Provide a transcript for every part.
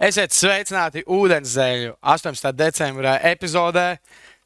Esiet sveicināti Ūdenszeļu 18. decembra epizodē.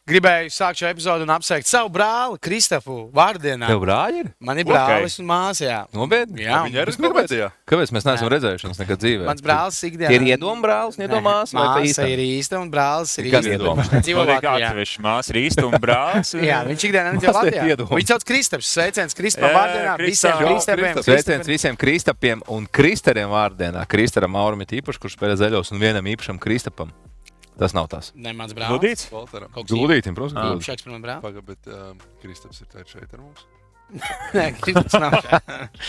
Gribēju sākt šo epizodu un apsveikt savu brāli Kristapu vārdienā. Tev brāļi ir? Man ir brālis un māsa, jā. Nopietni? Jā. Viņa ir izpētījā. Kāpēc mēs neesam redzējuši viņus nekad dzīvē? Mans brālis ikdienā. Tie ir iedomu brālis, iedomās? Māsa ir īsta un brālis ir Kas īsta. iedomu? Viņš dzīvo Latvijā. Māsa ir īsta un brālis. Jā, viņš ikdienā nedzīvo Mazliet Latvijā. iedomu. Viņš sauc Kristaps. Sveiciens Kristapam Jā, vārdienā. Visiem Kristap. Kristapiem. Sveiciens visiem Kristapiem un Kristeriem vārdienā. Kristaram Mauram ir īpaši, kurš spēlē zaļos, un vienam īpašam Kristapam. Tas nav tas. Ne, mans brālis. Ludīts? Valteram. Kaut kas Gludītim, protams, gludīt. īpašāks par manu brāli. Paga, bet Kristaps ir šeit ar mums. Nē, Kristaps nav šeit.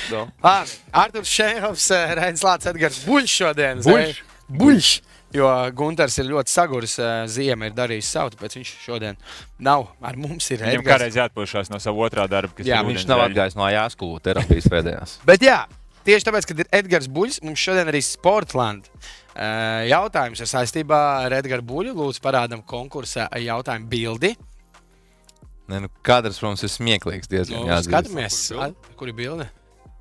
No. Labi, Arturs Šēhovs, Reinis Lācis, Edgars Buļš šodien. Buļš? Buļš! Jo Gunters ir ļoti saguris, ziema ir darījis savu, tāpēc viņš šodien nav ar mums. Ir Viņam Edgars. kādreiz jāatpūšās no savu otrā darba, kas Jā, ir Viņš nav atgājis no jāskolu terapijas pēdējās. Bet jā, tieši tāpēc, kad ir Edgars Buļs, mums šodien arī Sportland jautājums ir saistībā ar Edgars Buļu. Lūdzu, parādam konkursa jautājumu bildi. Nē, nu, kadrs, protams, ir smieklīgs diezgan. Nu, jāatzīst. skatāmies, kur ir bilde.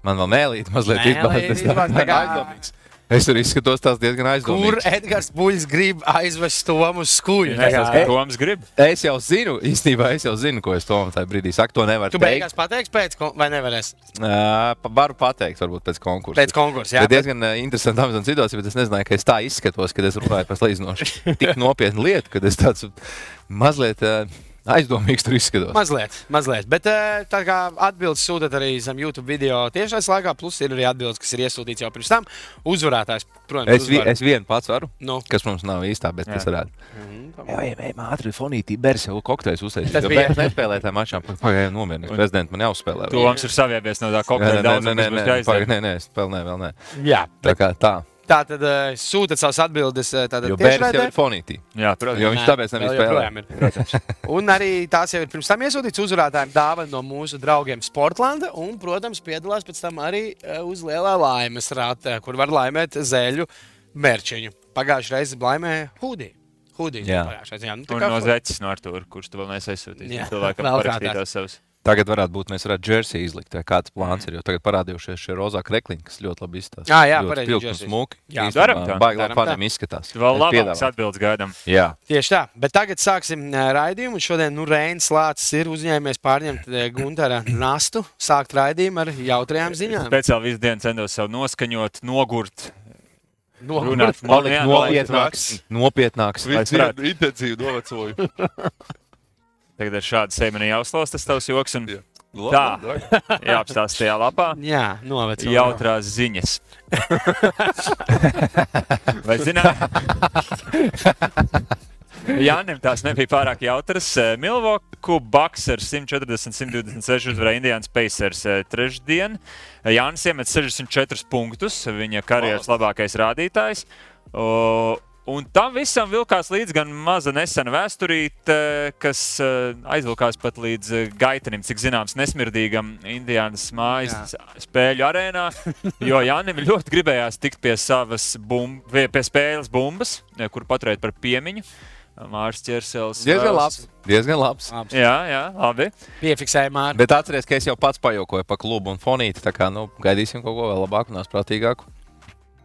Man vēl mēlīt mazliet izbāzties. Izbāzties. Es tur izskatos tās diezgan Kur aizdomīgs. Edgars Buļs grib aizvest Tomu uz skuļu? Toms grib. Es jau zinu, īstenībā es jau zinu, ko es Tomam tajā brīdī saku. To nevar Tu teikt. beigās pateiksi pēc, vai nevarēs? Varu pateikt, varbūt pēc konkursa. Pēc konkursa, jā. Tā ir diezgan interesanta amizanta situācija, bet es nezināju, ka es tā izskatos, kad es runāju par salīdzinoši tik nopietnu lietu, kad es tāds mazliet aizdomīgs tur izskatos. Mazliet. Bet tā kā atbildes sūtat arī zem YouTube video tiešais laikā, plus ir arī atbildes, kas ir iesūtīts jau pirms tam. Uzvarētājs, protams, Es vienu pats varu, Nu. kas mums nav īstā, bet tas varētu. Jā, ātri fonītī, bērs jau kokteļus uztaisīt. Tas Jo bija- bērs nespēlē tā mačā, pagaidām nomierinies. Prezidents man jāuzspēlē. Toms ir saviebies no tā kokteļa daudzuma, kas būs jāizdara. Nē, spēlē vēl nē. Jā, Tā kā tā. tā tad sūtat savas atbildes tātad Jo bērs jau tiešraidē. ir fonītī. Jā, protams. Jo viņš tāpēc Vēl nevis spēlē. joprojām ir. Un arī tās jau ir pirms tam iesūtīts uzvarētājiem dāvana no mūsu draugiem Sportlanda. Un, protams, piedalās pēc tam arī uz lielā laimes rāta, kur var laimēt zeļu mērčiņu. Pagājušajā reizē laimēja Hudī. Jā. Un no Zeķis no Artūra, kurš tu vēl neesi aizsūtījis. Jā, Cilvēkam vēl parakstītās savus. Tagad varētu būt, mēs varētu jersey izlikt, vai kāds plāns ir, jo tagad parādījušies šie rozā krekliņi, kas ļoti labi izstāsta. Jā, Ļoti pareizi, spilgti un jersey. smuki. Jā, Īstenībā daram tā. baigi Daram labi tā. faniem izskatās. Vēl Es labāks piedāvāju. atbildes gaidām. Jā. Tieši tā, bet tagad sāksim raidījumu. Un šodien Reinis Lācis ir uzņēmies pārņemt Guntera nastu, sākt raidījumu ar jautrajām ziņām. Speciāli visu dienu centos sev noskaņot, nogurt, Runāt. runāt. Palikt nopietnāks. Lai Visu varētu. dienu intensīvi novecoju. Tagad ar šādu sēmeni jāuzklaus tas tavs joks un Labi, jāapstāst tajā lapā. Jā, novecot. Jautrās ziņas. Vai zināt? Jānim tās nebija pārāk jautras. Milwaukee Bucks ar 140-126 uzvarēja Indians Pacers trešdien. Jānis iemet 64 punktus, viņa karjeras labākais rādītājs. Un tam visam vilkās līdz gan maza nesena vēsturīte, kas aizvilkās pat līdz gaitenim, cik zināms, nesmirdīgam Indiānas mājas spēļu arēnā, jo Jānim ļoti gribējās tikt pie savas pie spēles bumbas, kur paturēt par piemiņu. Mārs Ķersels. Diezgan labs. Jā, labi. Piefiksēja Māri. Bet atceries, ka es jau pats pajokoju pa klubu un fonīti, tā kā, gaidīsim kaut ko vēl labāku un prātīgāku.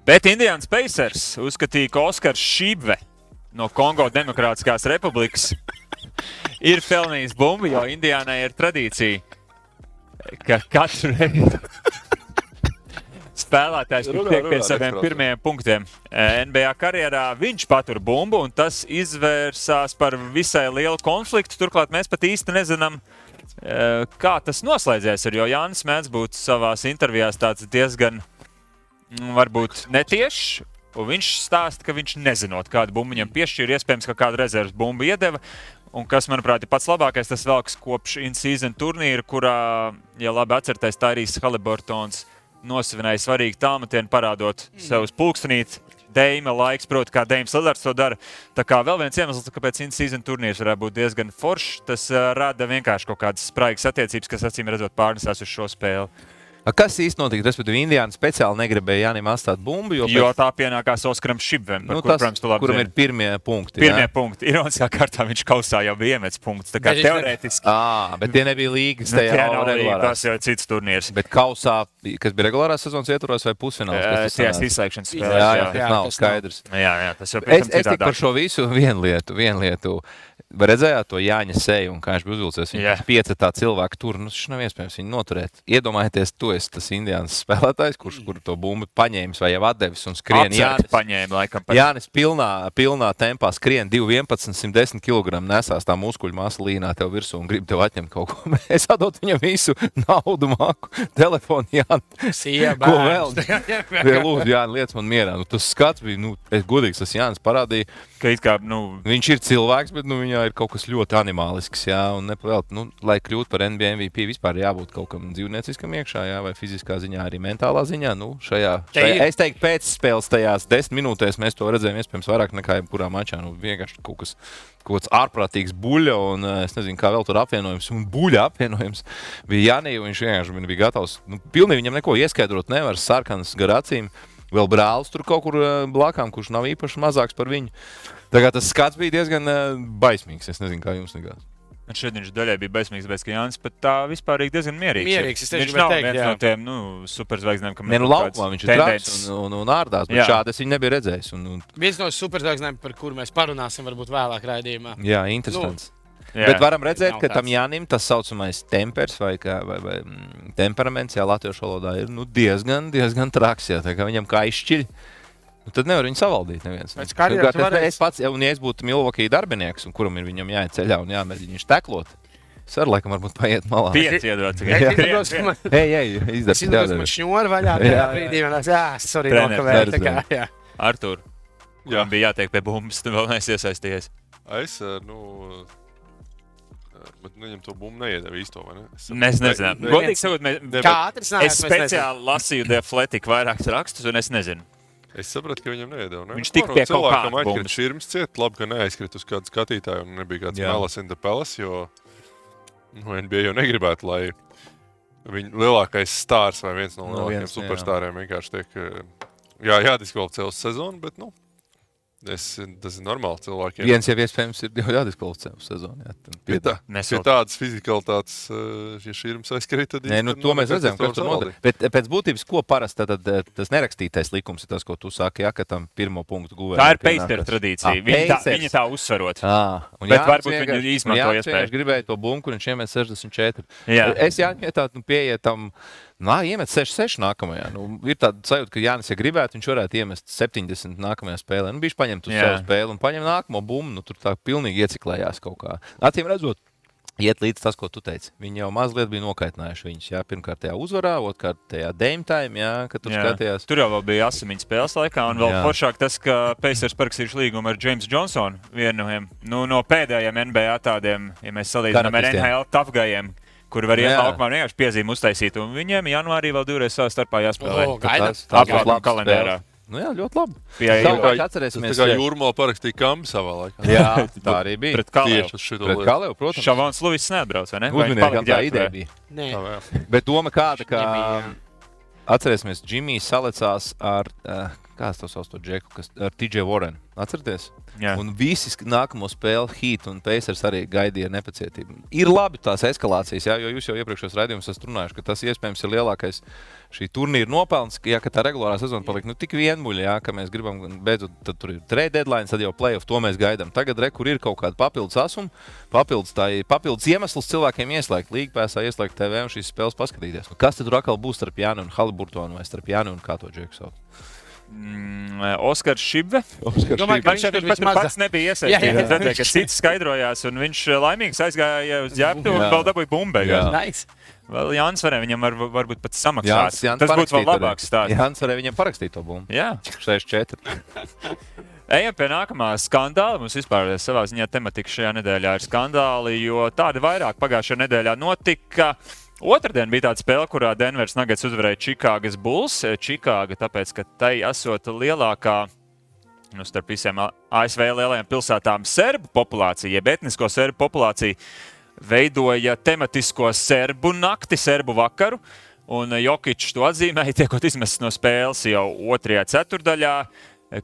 Bet Indians Pacers uzskatīja, ka Oskars Šībve no Kongo Demokrātiskās Republikas ir pelnījis bumbu, jo Indiānai ir tradīcija, ka katru reizi spēlētājs tiek pie saviem pirmajiem punktiem NBA karjerā. Viņš patur bumbu, un tas izvērsās par visai lielu konfliktu. Turklāt mēs pat īsti nezinām, kā tas noslēdzies. Jo Jānis mēdz būt savās intervijās tāds diezgan, varbūt netiešs. Un viņš stāsta, ka viņš nezinot, kādu bumbu viņam piešķīra. Iespējams, ka kādu rezerves bumbu iedeva. Un kas, manuprāt, ir pats labākais, tas velks kopš in-season turnīra, kurā, ja labi atcerēties, Tyrese Haliburtons nosvinēja svarīgu tālmetienu, parādot sev uz pulkstenīti. Deima laiks, proti, kā Deims Lillards to dara. Tā kā vēl viens iemesls, kāpēc in-season turnīrs varētu būt diezgan foršs, tas rada vienkārši kaut kādas spraigas attiecības, kas acīm redzot pārnesās uz šo spēli. Kas īsti notika? Respektīvi, Indiāna speciāli negribēja Jānim atstāt bumbu, Jo tā pienākās Oskaram Šibvem, par kuru, protams, tu labi kuram zini. ir pirmie punkti. Pirmie punkti. Ironiskā kārtā viņš kausā jau bija iemetis punktus. Tā kā Bet viņš teorētiski. Bet tie nebija līgas tajā Tie nav līga, regulārās. tas jau ir cits turnīrs. Bet kausā, kas bija regulārās sezonas ietvaros vai pusfināls? kas tas Tās sanāca? izslēgšanas Jā, spēlēs. jā, tas nav skaidrs. Jā, tas jau Es teiktu par šo visu vienu lietu. Vai redzējāt to Jāņa seju un kā viņš bija uzvilcies? Jā. Viņš piecetā cilvēku tur, šis nav iespējams viņu noturēt. Iedomājieties, tu esi tas Indiānas spēlētājs, kurš to bumbu paņēmis vai jau atdevis un skrien. Paņēma, laikam. Jānis pilnā tempā skrien 2,11, 110 kg nesās tā muskuļu masa līnā tev virsū un grib tev atņemt kaut ko. Es atdot viņam visu naudu, māku, telefonu, Jāni. Ko vēl? Lūdzu, Jāni, liec man mierā. Tas skats bija, es godīgs, tas Jānis parādīja. Viņš ir cilvēks, bet viņā ir kaut kas ļoti animālisks, un nepavēlt, lai kļūtu par NBA MVP, vispār jābūt kaut kam dzīvnieciskam iekšā, vai fiziskā ziņā, arī mentālā ziņā. Šajā, es teiktu, pēc spēles tajās 10 minūtēs mēs to redzējām iespējams vairāk nekā jebkurā mačā. Vienkārši kaut kāds ārprātīgs buļļa, un es nezinu, kā vēl tur apvienojums, un buļļa apvienojums bija Jānī, un viņš vienkārši bija gatavs. Pilnīgi viņam neko ieskaidrot nevar, sarkanas gar acīm. Vēl brālis tur kaut kur blakām, kurš nav īpaši mazāks par viņu. Tā kā tas skats bija diezgan baismīgs. Es nezinu, kā jums likās. Šeit viņš daļai bija baismīgs, bet Jānis pat tā vispār ir diezgan mierīgs. Viņš nav teikt, viens no tiem superzvaigznēm, kam laukumā viņš ir traks un ārdās, bet šādi es viņu nebiju redzējis. Viens no superzvaigznēm, par kuru mēs parunāsim varbūt vēlāk raidījumā. Jā, interesants. Bet varam redzēt, ka tam Jānim tas saucamais tempers vai temperaments, latviešu valodā ir diezgan traks. Tā kā viņam kā izšķiļ, tad nevar viņu savaldīt neviens. Es pats, ja es būtu Milwaukee darbinieks, un kuram ir viņam jāiet ceļā un jāmēģina viņš teklot, es varu laikam varbūt paiet malā. Pieci iedot. Es izdodos man šņori vaļā tajā brīdī, sorry, nokavēju. Artur, man bija jātiek pie bumbas, tu vēl neesi iesaistījies. Bet viņam to bumbu neiedeva īsto, vai ne? Mēs nezinām. Godīgi sakot, es speciāli lasīju The Athletic vairākus rakstus, un es nezinu. Es sapratu, ka viņam neiedeva. Ne? Viņš tika pie kaut kāda bumbas. Aizkrita širms ciet, labi, ka neaizkrita uz kādu skatītāju, un nebija kāds Melas in the Palace, jo NBA jau negribētu, lai viņa lielākais stārs vai viens no lielākajiem superstāriem vienkārši tiek jādiskvalificē uz sezonu, bet, tas ir normāli cilvēkiem. Viens jau iespējams ir jādiskvalificē uz sezonu. Pie tādas fizikalitātes, ja šķirums aizkrīt, tad... to mēs redzējām, kas tur notiek. Bet pēc būtības, ko parasti tas nerakstītais likums ir tas, ko tu saki, ka tam pirmo punktu guvējiem. Tā ir Pacers tradīcija. Viņi tā uzsvarot. Bet varbūt viņi izmanto iespēju. Viņš gribēja to bumbu, kur viņš iemet 64. Es jāņem pieiet iemet 6-6 nākamajā. Ir tāda sajūta, ka Jānis, ja gribētu, viņš varētu iemest 70 nākamajā spēlē. Viņš paņemt uz savu spēli un paņem nākamo bumbu. Tur tā pilnīgi ieciklējās kaut kā. Acīm redzot, iet līdz tas, ko tu teici. Viņi jau mazliet bija nokaitinājuši viņus. Pirmkārt tajā uzvarā, otrkārt tajā Dame Time, kad tur skatījās. Tur jau bija asimiņu spēles laikā, un vēl foršāk tas, ka Pacers parakstījuši līgumu ar James Johnsonu, vienu no pēdējiem NBA tādiem, ja mēs salīdzinām ar NHL tafgajiem, kuri var iet laukumā vienkārši piezīmi uztaisīt, un viņiem janvārī vēl divreiz savā starpā jāspēlē. Apgādājumā kalendārā. Jā, ļoti labi. Atcerēsimies, kā Jūrmā parakstīja Kambi savā laikā. Jā, tā arī bija. Pret Kalēvu. Pret Kalēvu, protams. Šavons Luvis neatbrauc, vai ne? Uzminiekam, tā ideja bija. Nē. Bet doma kāda, ka atcerēsimies, Džimijs salecās ar, kāds to sauc to džeku, ar TJ Warren. Atcerieties? Jā. Un visi nākamo spēli Heat un Pacers arī gaidīja nepacietību. Ir labi tās eskalācijas, jo jūs jau iepriekšējos raidījumus esat runājuši, ka tas iespējams ir lielākais šī turnīra nopelns, ka tā regulārā sezona palika tik vienmuļa, ka mēs gribam beidzot, tad tur ir trade deadline, tad jau playoff, to mēs gaidām. Tagad kur ir kaut kāda papildus asuma, papildus iemesls cilvēkiem ieslēgt līgpēsā, ieslēgt TV un šīs spēles paskatīties. Kas tad tur atkal būs starp Jāni un Haliburtonu vai starp Jāni un kā to džeku sauc? Oskars Šibve. Viņš pats nebija iesaistīts. Redzēja, ka cits skaidrojās, un viņš laimīgs aizgāja uz ģērbtu un vēl dabūja bumbu. Nice. Vēl Jānis varēja viņam varbūt pat samaksāt. Tas būtu vēl labāks stāsts. Jānis varēja viņam parakstīt to bumbu. Jā. 6-4. Ejam pie nākamā skandāla. Mums vispār savā ziņā tematika šajā nedēļā ir skandāli, jo tādi vairāk pagājušajā nedēļā notika. Otradien bija tāda spēle, kurā Denveras Nuggets uzvarēja Čikāgas Bulls. Čikāga, tāpēc, ka tai esot lielākā, starp visiem ASV lielajām pilsētām, serbu populācija, jeb etnisko serbu populācija, veidoja tematisko serbu nakti, serbu vakaru. Un Jokičs to atzīmēja, tiekot izmests no spēles jau 2. ceturdaļā,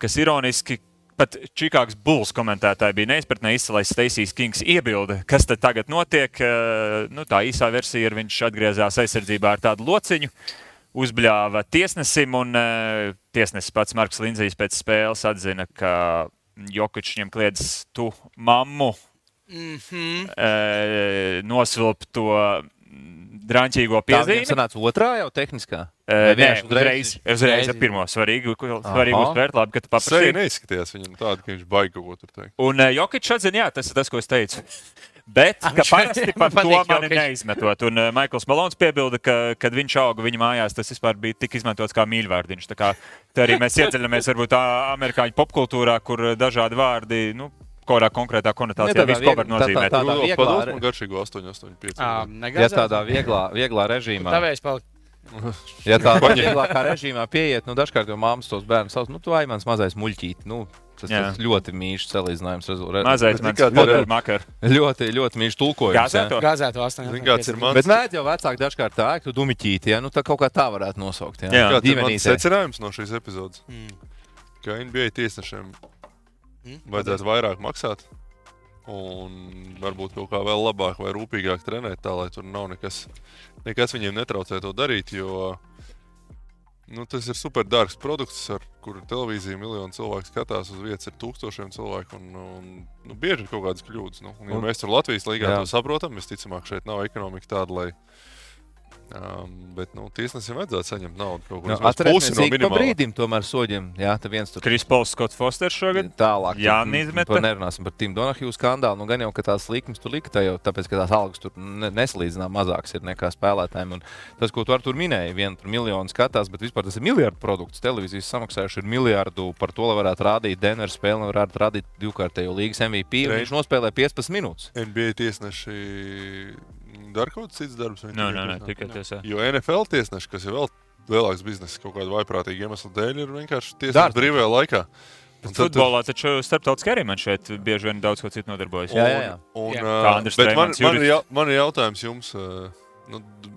kas ironiski pat Čikāgas Bulls komentētāji bija neizpratnē izcelais Stacijs Kings iebilde, kas tad tagad notiek. Tā īsā versija ir, viņš atgriezās aizsardzībā ar tādu lociņu, uzbļāva tiesnesim, un tiesnesis pats Marks Lindzijs pēc spēles atzina, ka Jokičs viņam kliedz tu mammu, nosvilp to drāņķīgo piezīmi. Tā sanāca otrā jau tehniskā? Uzreiz ar pirmo svarīgu uztvērt, labi, ka tu paprasīji. Seja neizskatījās viņam tādu, ka viņš baigi kaut ko tur teikt. Un Jokičs atzina, jā, tas ir tas, ko es teicu. Bet, ka parasti par to mani neizmetot. Un Maikls Malons piebilda, ka, kad viņš auga viņa mājās, tas vispār bija tik izmantots kā mīļvārdiņš. Tā kā tā arī mēs iedziļamies varbūt amerikāņu popkultūrā, kur dažādi vārdi, kādā konkrētā konotācijā visu ko var nozīmēt. Pados man garšīgo 885. Ja tādā vieglā režīmā. Tavējs palikt. Ja tādā vieglākā režīmā pieiet, dažkārt jau māmas tos bērnus sauc, tu ai mans mazais muļķīt. Tas ļoti mīļš salīdzinājums. Mazais mans poder makar. Ļoti, ļoti mīļš tulkojums. Gāzēto 8. Bet mēdz jau vecāki dažkārt tā, tu dumiķīti, tā kaut kā tā varētu nosaukt. Kāds ir mans secinājums no šīs epizodes? Ka NBA tiesnešiem vajadzētu vairāk maksāt un varbūt kaut kā vēl labāk vai rūpīgāk trenēt tā, lai tur nav nekas viņiem netraucē to darīt, jo tas ir super dārgs produkts, ar kuru televīziju miljonu cilvēku skatās, uz vietas ir tūkstošiem cilvēku un bieži ir kaut kādas kļūdas. Ja mēs tur Latvijas līgā to saprotam, visticamāk šeit nav ekonomika tāda, lai bet tiesnesim vajadzētu saņemt naudu kaut kur vismaz pusi no minimālā. Pa brīdim tomēr soģim. Jā, tā viens tur. Kris Pols, Skots Fosters šogad. Tālāk. Jā, neizmeta. Nerunāsim par Tim Donahue skandālu. Gan jau, ka tās likmes tur likta jau, tāpēc, ka tās algas tur nesalīdzinām mazāks ir nekā spēlētājiem. Un tas, ko tu ar tur minēji, miljonu skatās, bet vispār tas ir miljardu produkts. Televīzijas samaksājuši ir miljardu par to, lai varētu rādīt Denver spēli, lai varētu rādīt divkārtējo līgas MVP. Viņš nospēlē 15 minūtes. NBA tiesneši dara kaut kāds cits darbs? Nē, tikai tiesā. Jo NFL tiesneši, kas ir vēl lielāks bizness kaut kādu vaiprātīgu iemeslu dēļ, ir vienkārši tiesneši brīvajā laikā. Futbolā taču starptautiski arī man šeit bieži vien daudz ko citu nodarbojas. Jā. Bet man ir jautājums jums.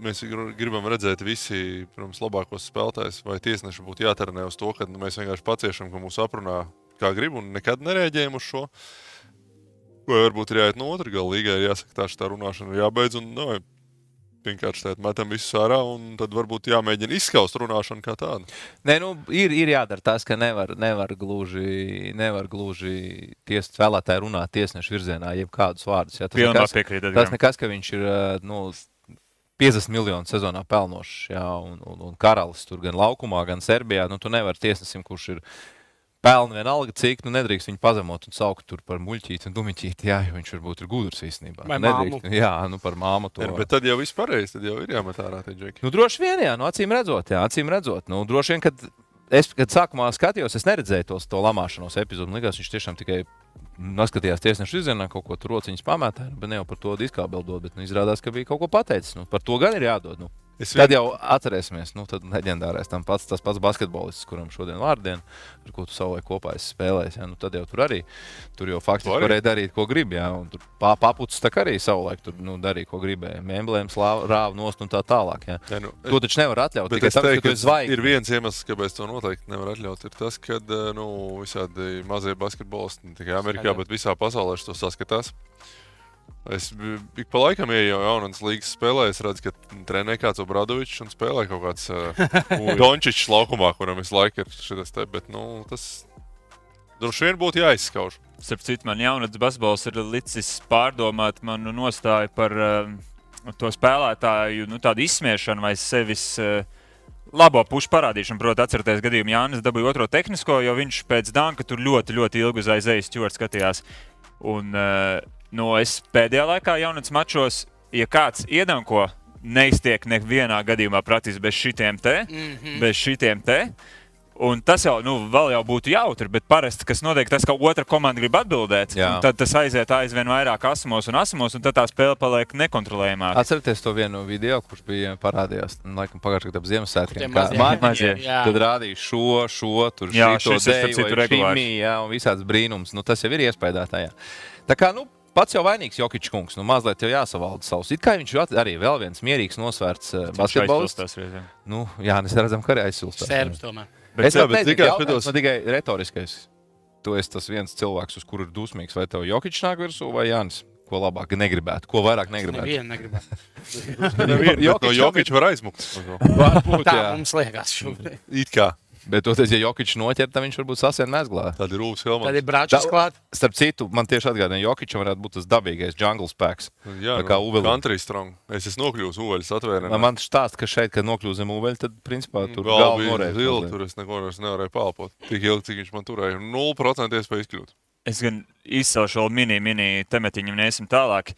Mēs gribam redzēt visi, protams, labākos spēlētājus, vai tiesneši būtu jātrenē uz to, ka mēs vienkārši paciešam, ka mūs aprunā kā grib un nekad nereaģējam uz šo. Vai varbūt ir jāiet no otra gala līgai, ir jāsaka, tā runāšana ir jābeidz un vienkārši metam visu ārā un tad varbūt jāmēģina izskaust runāšanu kā tādu. Nē, ir jādara tas, ka nevar gluži spēlētāji runāt tiesnešu virzienā, jeb kādus vārdus. Ja, tas nekas, ka viņš ir 50 miljonu sezonā pelnošs, un karalis tur gan laukumā, gan Serbijā. Tu nevari tiesnesim, kurš ir pelna vienalga, cik nedrīkst viņu pazemot un saukt tur par muļķīti un dumiķīti, jo viņš varbūt ir gudrs īstenībā. Vai māmu. Jā, par māmu to. Bet tad jau viss pareizi, tad jau ir jāmet ārā tie džeki. Droši vien, jā, acīm redzot. Droši vien, kad sākumā skatījos, es neredzēju to lamāšanos epizodu. Man likās, viņš tiešām tikai noskatījās tiesnešu izzienā, kaut ko tur rociņas pamētā, bet ne jau par to diskābeldot, bet izrādās, ka bija kaut ko pateicis. Par to gan ir jādod. Tad jau atcerēsimies, tad leģendārais tas pats basketbolists, kuram šodien vārdiena, ar ko tu savulaik kopā esi spēlējis. Tad jau tur jau faktiski varēja darīt, ko grib. Un tur papucis tā arī savulaik tur darīja, ko gribēja. Emblēmas rāva nost un tā tālāk. To taču nevar atļaut. Bet es teiktu, ka ir viens iemesls, kāpēc to noteikti nevar atļaut, ir tas, ka visādi mazie basketbolisti, ne tikai Amerikā, bet visā pasaulē to saskatās. Es ik pa laikam ieju jaunas līgas spēlē, es redzu, ka trenē kāds Obradovičs un spēlē kaut kāds Dončičs laukumā, kuram visu laiku ir šitas te, bet tas droši vien būtu jāizskauž. Starp citu, man jaunatnes basketbols ir licis pārdomāt manu nostāju par to spēlētāju, tādu izsmiešanu vai sevis labo pušu parādīšanu. Proti, atcerieties gadījumu, Jānis dabūja otro tehnisko, jo viņš pēc danka tur ļoti, ļoti ilgi uz aizejas Stjuarts skatījās. Un es pēdējā laikā jaunatnes mačos, ja kāds iedanko, neiztiek nevienā gadījumā praktiski bez šitiem te. Un tas jau, vēl jau būtu jautri, bet parasti, kas notiek, tas, ka otra komanda grib atbildēt, tad tas aiziet aizvien vairāk asumos, un tad tā spēle paliek nekontrolējumāk. Atcerieties to vienu video, kurš bija parādījās, laikam pagājušajā gadā ap Ziemassvētkiem. Tad rādīja šo, tur šito deju vai šimī, un visāds brīnums. Tas jau ir iespējātājā. Tā kā, pats jau vainīgs Jokičs kungs, nu mazliet jau jāsavalda savus. It kā viņš arī vēl viens mierīgs nosvērts basketbolists. Nu, jā, mēs redzam, ka arī aizsilstās. Serbs tomēr. Es jautājums tikai retoriskais. Tu esi tas viens cilvēks, uz kuru ir dusmīgs. Vai tev Jokičs nāk virsū vai Jānis? Ko labāk negribētu? Ko vairāk negribētu? Nevienu negribētu. No Jokiča var aizmukt. Varbūt, Tā jā. mums liekas šobrīd. It kā. Bet toties, ja Jokičs noķer, tad viņš varbūt sasien mezglā. Tad ir Rūvs Tad Helmans. ir Bračs klāt. Starp citu, man tieši atgādina, Jokičam varētu būt tas dabīgais jungle spēks. Jā, Tā kā Uvelim. country strong. Es esmu nokļūs Uveļas atvērēnā. Man štāst, ka šeit, kad nokļūst zem Uveļa, tad principā tur Galva galva bija norēs. zila, tur es neko vairs nevarēju palpot. Tik ilgi, cik viņš man turēja. 0% iespēja izkļūt. Es gan izcelšu vēl mini tematiņu un iesim tālāk.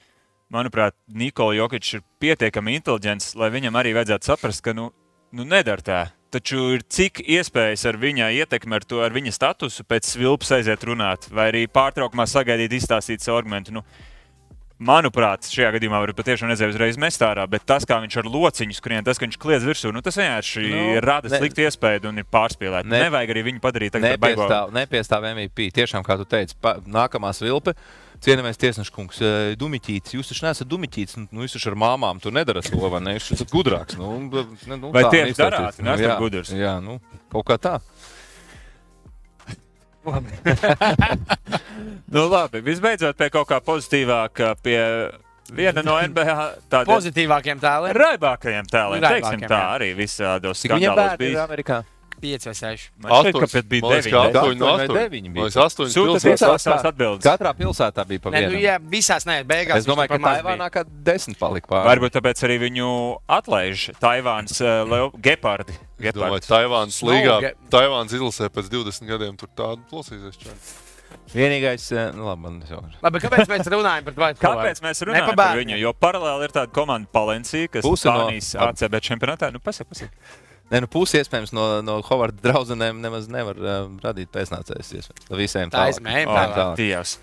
Manuprāt, Nikola Jokičs ir pietiekami inteliģents, lai viņam arī vajadzētu saprast, ka nu nedara tā. Taču ir cik iespējas ar viņa ietekmi, ar viņa statusu pēc svilpas aiziet runāt, vai arī pārtraukumā sagaidīt, izstāstīt savu argumentu. Manuprāt, šajā gadījumā var patiešām nezēju uzreiz mest ārā, bet tas, kā viņš ar lociņu skrien, tas, ka viņš kliedz virsū, tas vienkārši rada sliktu iespēju un ir pārspīlēti. Nevajag arī viņu padarīt tagad par baigo. Nepiestāv MVP. Tiešām, kā tu teici, nākamā svilpe. Cienījamies tiesneša kungs, Dumiķītis. Jūs taču neesat Dumiķītis, jūs taču ar māmām tur nedarat to, vai ne? Jūs esat gudrāks. Vai tieši darāt? Nesat gudrs. Jā, kaut kā tā. Labi, visbeidzot pie kaut kā pozitīvāka, pie viena no NBA tādiem Pozitīvākiem tēliem. raibākajiem tēliem. Teiksim tā, arī visādos Cik viņam skandālos bērni ir bija. Amerikā? 5 vai 6. Man šķiet, ka pēc bija 9. Man liekas, 8 Sūta pilsētās. tās atbildes. Katrā pilsētā bija pa Nē, vienam. jā, visās nē, beigās. Es domāju, ka Taivānā kā 10 palika pāri. Varbūt tāpēc arī viņu atlaiž Taivāns gepardi. Es domāju, Taivāns līgā, Taivāns izlasē pēc 20 gadiem tur tādu plosīsies čādi. Vienīgais, labi, man nesaukšu. Labi, kāpēc mēs runājam par Dwight Howardu? Kāpēc mēs runājam par viņu? Jo paralēli ir tāda komanda Palencija, kas Spānijas ACB čempionātā. Pasaka. Nē, pusi iespējams no Hovarda draudzenēm nemaz nevar radīt pēcnācējus. Visiem Tā izmēģinājumā. Dievs.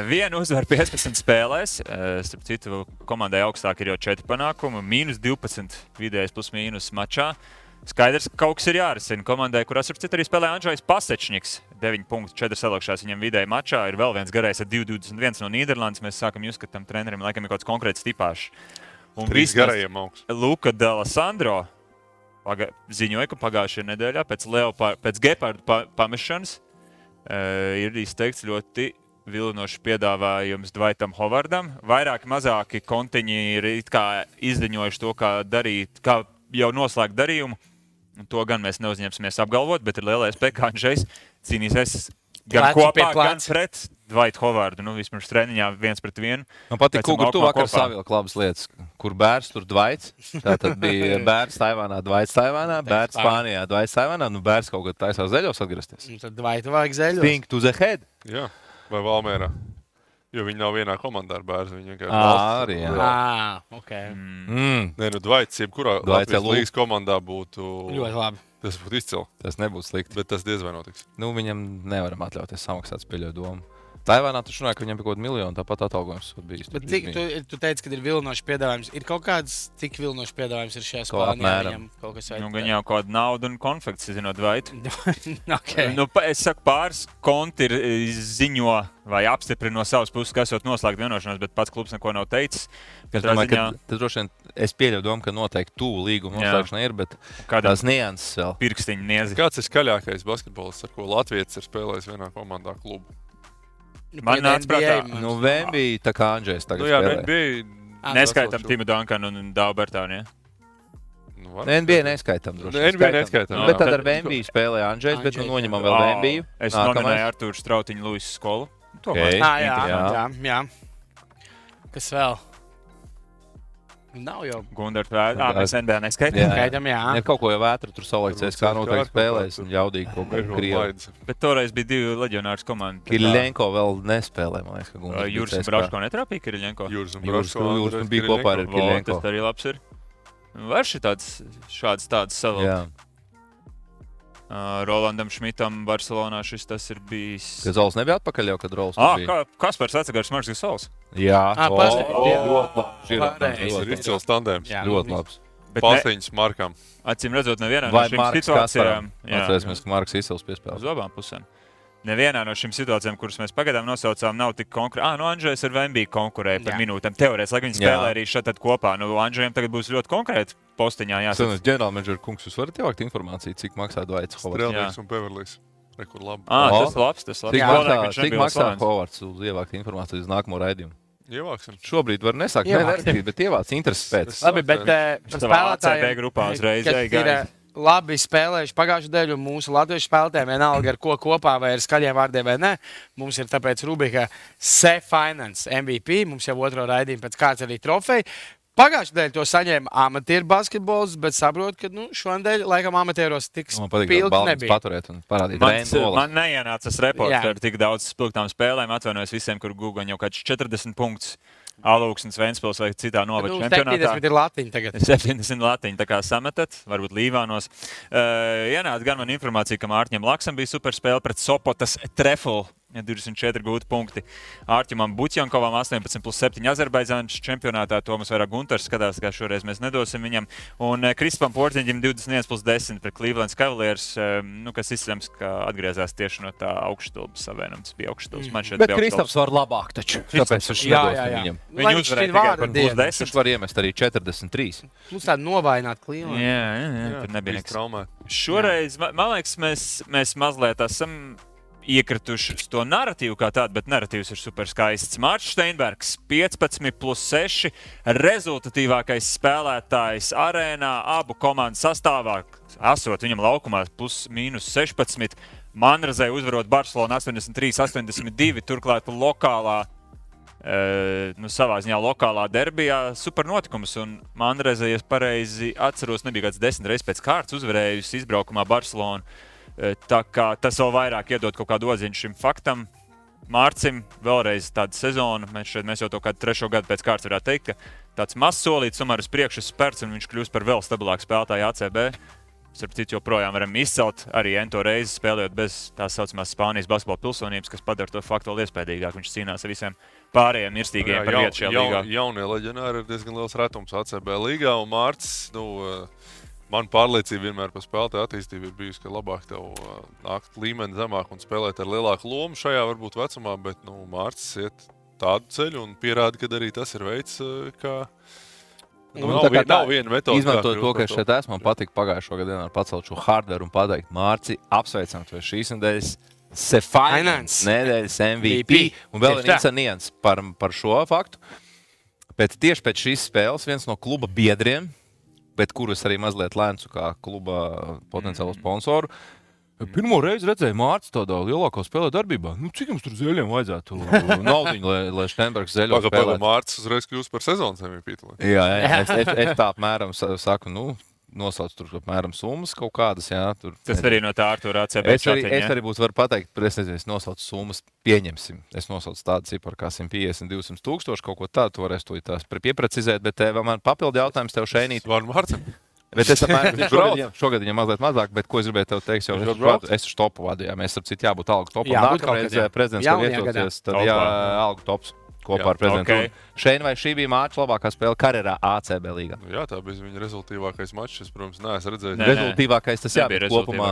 Vienu uzvaru 15 spēlēs. Starp citu, komandai augstāk ir jau 4 panākumi. -12 vidējais plus mīnus mačā. Skaidrs, ka kaut kas ir jārisina komandai, kurās ar citu arī spēlē Andžejs Pasečņiks. 9,4 salokšās viņam vidēji mačā. Ir vēl viens garais ar 2,21 no Nīderlandes. Mēs sākam just, ka tam trenerim laikam ir kaut kāds konkrēts tipāžs. Un 3 garajiem augsts. Luka D'Alessandro ziņoja, ka pagājušajā nedēļā pēc gepardu pamešanas ir izteikts ļoti vilinošs piedāvājums Dwightam Howardam. Vairāki mazāki kontiņi ir izziņojuši to, kā jau noslēgt darījumu. To gan mēs neuzņemsimies apgalvot, bet ir lielais iespēja, ka Andžejs cīnīsies gan kopā, gan pret Dwight Howardu. Vismaz treniņā 1-1. Man patīk, kur tu vakar savilki labas lietas. Kur bērns, tur Dwights. Tā tad bija bērns Taivānā, Dwights Taivānā, bērns Spānijā, Dwights Taivānā. Bērns kaut kad taisās zeļos atgriezties. Tad Dwightu vajag zeļos. Think to the head. Jā, vai Valmērā. Jo viņi nav vienā komandā ar bērnu. Viņi vienkārši arī, jā. Ok. Nē, Dwights, jebkurā Latvijas līgas komandā būtu ļoti labi. Tas būtu izcili. Tas nebūtu slikti. Bet tas diez vai notiks. Viņam nevaram atļauties samaksāt spēļu domu. Taivānā taču runāja, ka viņam bija kaut kāda miljona, tāpat atalgojums bijis. Bet cik tu teici, ka ir vilinošs piedāvājums? Ir kaut kāds, cik vilinošs piedāvājums ir šajā Spānijā? Viņam kaut kas vajag. Gan jau kāda nauda un konfekts, zinot, Dwightu. Okay. Es saku, pāris konti ir ziņo vai apstiprina no savas puses, ka esot noslēgt vienošanos, bet pats klubs neko nav teicis. Es domāju, ka tas droši vien, es pieļauju domu, ka noteikti tuvu līguma noslēgšana ir, bet tās nianses vēl. Pirkstiņu niezi. Kāds ir skaļākais basketbolists, ar ko Latvijas ir spēlējis vienā komandā klubu? Man nāca prātā. Vembija tā kā Andžejs tagad spēlē. Neskaitam Timu Dunkanu un Dāvu Bertānu, ja? NBA neskaitam droši. NBA neskaitam. Bet tad ar Vembiju spēlēja Andžejs, bet noņemam vēl Vembiju. Es nominēju Artūru Strautiņu Luisu skolu. Jā. Kas vēl? Nav jau Gundars Vētra. Mēs NBA neskaitām. Jā. Ir kaut ko jau Vētra tur salīdzēs, kā noteikti spēlēs un jaudīgi kaut kā Krievi. Bet toreiz bija 2 leģionārs komandi. Kiriļenko vēl nespēlē, man liekas, ka Gundars. Jūras un Braško netrāpīja Kiriļenko? Jūras un bija kopā ar Kiriļenko. Tas arī labs ir. Var šāds tāds savu. Rolandam Šmitam Barcelonā šis tas ir bijis. Ka Zols nebija atpakaļ jau, kad Rols bija. Kaspars atsagars Marks Sols. Jā. Ir izcils tandēms. Ļoti labs. Pastiņas Markam. Acīm redzot, nevienā no šīm situācijām. Atcerēsimies, ka Marks izcils piespēlē. Uz abām pusēm. nevienā no šīm situācijām, kuras mēs pagaidām nosaucām, nav tik konkrēti. Andžejs ar Vembiju konkurēja par minūtēm. Teorētiski, lai viņi spēlē arī šeit kopā. Andžejam tagad būs ļoti konkrēti postiņā jāsaka. Ģenerālmenedžera kungs, jūs varat ievākt informāciju, cik maksā Dvaits Hovards? Strelnieks un Beverlijs. Rekur labi. Tas labs. Cik maksā Hovards uz ievākt informāciju uz nākamo raidījumu? Ievāksim. Šobrīd var nesākt nerakstīt, bet ievāc intereses pēc. Labi, bet spēlētājiem grupā uzreiz ir labi spēlējuši pagājušajā dēļ, un mūsu latviešu spēlētājiem vienalga ar ko kopā vai ar skaļiem vārdiem vai ne. Mums ir tāpēc rubrika Se-Finance MVP, mums jau otro raidījumu pēc kāds arī trofeja. Pagājušajā dēļ to saņēma amatieru basketbols, bet saprotu, ka šodien laikam amatieros tik spilgti nebija. Paturēt un parādīt. Man neienāca tas reports ar tik daudz spilgtām spēlēm. Atvainojos visiem, kur Google jau kāds 40 punktus. Alūksnes, Ventspils vai citā novada čempionātā. 70 ir latiņi tagad. 70 latiņi, tā kā sametat, varbūt Līvānos. Ienāca gan man informācija, ka Mārķim Laksam bija superspēle pret Sopotas Trefl. 24 gūti punkti. Ārķimam Buķjankovam 18+7 Azerbaidžānas čempionātā. Tomas vairāk Gunters skatās, kā šoreiz mēs nedosim viņam. Un Kristupam Portiņģim 21+10 pret Cleveland Cavaliers, kas izsams, ka atgriezās tieši no tā augšstulbas savienums. Bija augšstulbas. Bet Kristaps var labāk taču. Tāpēc viņš nedosim viņam. Viņi uzvarēja tikai par +10. Viņš var iemest arī 43. Plus tādu novājināt Cleveland. Jā, tur nebija nekas. Šoreiz, man liekas, mēs mazliet esam iekrituši uz to narratīvu kā tādu, bet narratīvs ir super skaists. Mārcis Steinbergs 15+6, rezultatīvākais spēlētājs arēnā, abu komandu sastāvā, esot viņam laukumā +/-16. Manrazē uzvarot Barcelonu 83-82, turklāt lokālā, savā ziņā lokālā derbijā super notikums. Un Manrazē, ja pareizi atceros, nebija kāds 10 reizes pēc kārtas uzvarējusi izbraukumā Barcelonu. Tā kā tas vēl vairāk iedod kaut kādu odziņu šim faktam. Mārcim vēlreiz tāda sezona, mēs jau to kādu 3. gadu pēc kārtas varētu teikt, ka tāds mazs solīts tomēr uz priekšu spērts un viņš kļūst par vēl stabilāku spēlētāju ACB. Starp citu, joprojām varam izcelt arī ento reizi spēlējot bez tās saucamās Spānijas basketbola pilsonības, kas padara to faktu vēl iespējīgāk. Viņš cīnās ar visiem pārējiem mirstīgiem par vietu šajā līgā. Jaunie leģionāri ir diezgan liels retums ACB līgā, un Mārcis, man pārliecība vienmēr par spēlētāju attīstību ir bijusi, ka labāk tev nākt līmeni zemāk un spēlēt ar lielāku lomu šajā varbūt vecumā, bet Mārcis iet tādu ceļu un pierāda, ka arī tas ir veids, kā nav viena metode. Izmantojot to, ka es šeit esmu, man patika pagājušo gadu dienā pacelt šo hardveru un pateikt, Mārci, apsveicam tev šīs nedēļas Se-Finance nedēļas MVP. Un vēl ir nians par šo faktu. Tieši pēc šīs spēles viens no kluba biedriem, bet kurus arī mazliet lēncu kā kluba potenciālo sponsoru. Pirmo reizi redzēju Mārcis tādā lielākā spēlē darbībā. Cik jums tur zeļiem vajadzētu naudiņu, lai Steinbergs zeļo spēlētu? Mārcis uzreiz kļūst par sezonas MVP. Jā, es tā apmēram saku, nosauc tur apmēram summas kaut kādas. Jā, tas arī no tā Artūra ACB čatiņa. Es arī būtu varu pateikt, es nosaucu summas, pieņemsim. Es nosaucu tādu ciparu kā 150-200 tūkstoši, kaut ko tādu, tu varēsi to tās pieprecizēt, bet man papildu jautājums tev šeinīt. Vārnu Mārcim. Bet es šogad viņam mazliet mazāk, bet ko es gribēju tev teikt, jau es uz topu vadu, jā, mēs ar citu jābūt algu topu. Nākamreiz prezidents tev vietosies, tad algu tops. Kopā ar prezidentu. Šeit vai šī bija Mārcis labākā spēle karjerā ACB līgā? Jā, tā bija viņa rezultīvākais mačs. Es, protams, neesmu redzējis. Rezultīvākais tas bija kopumā.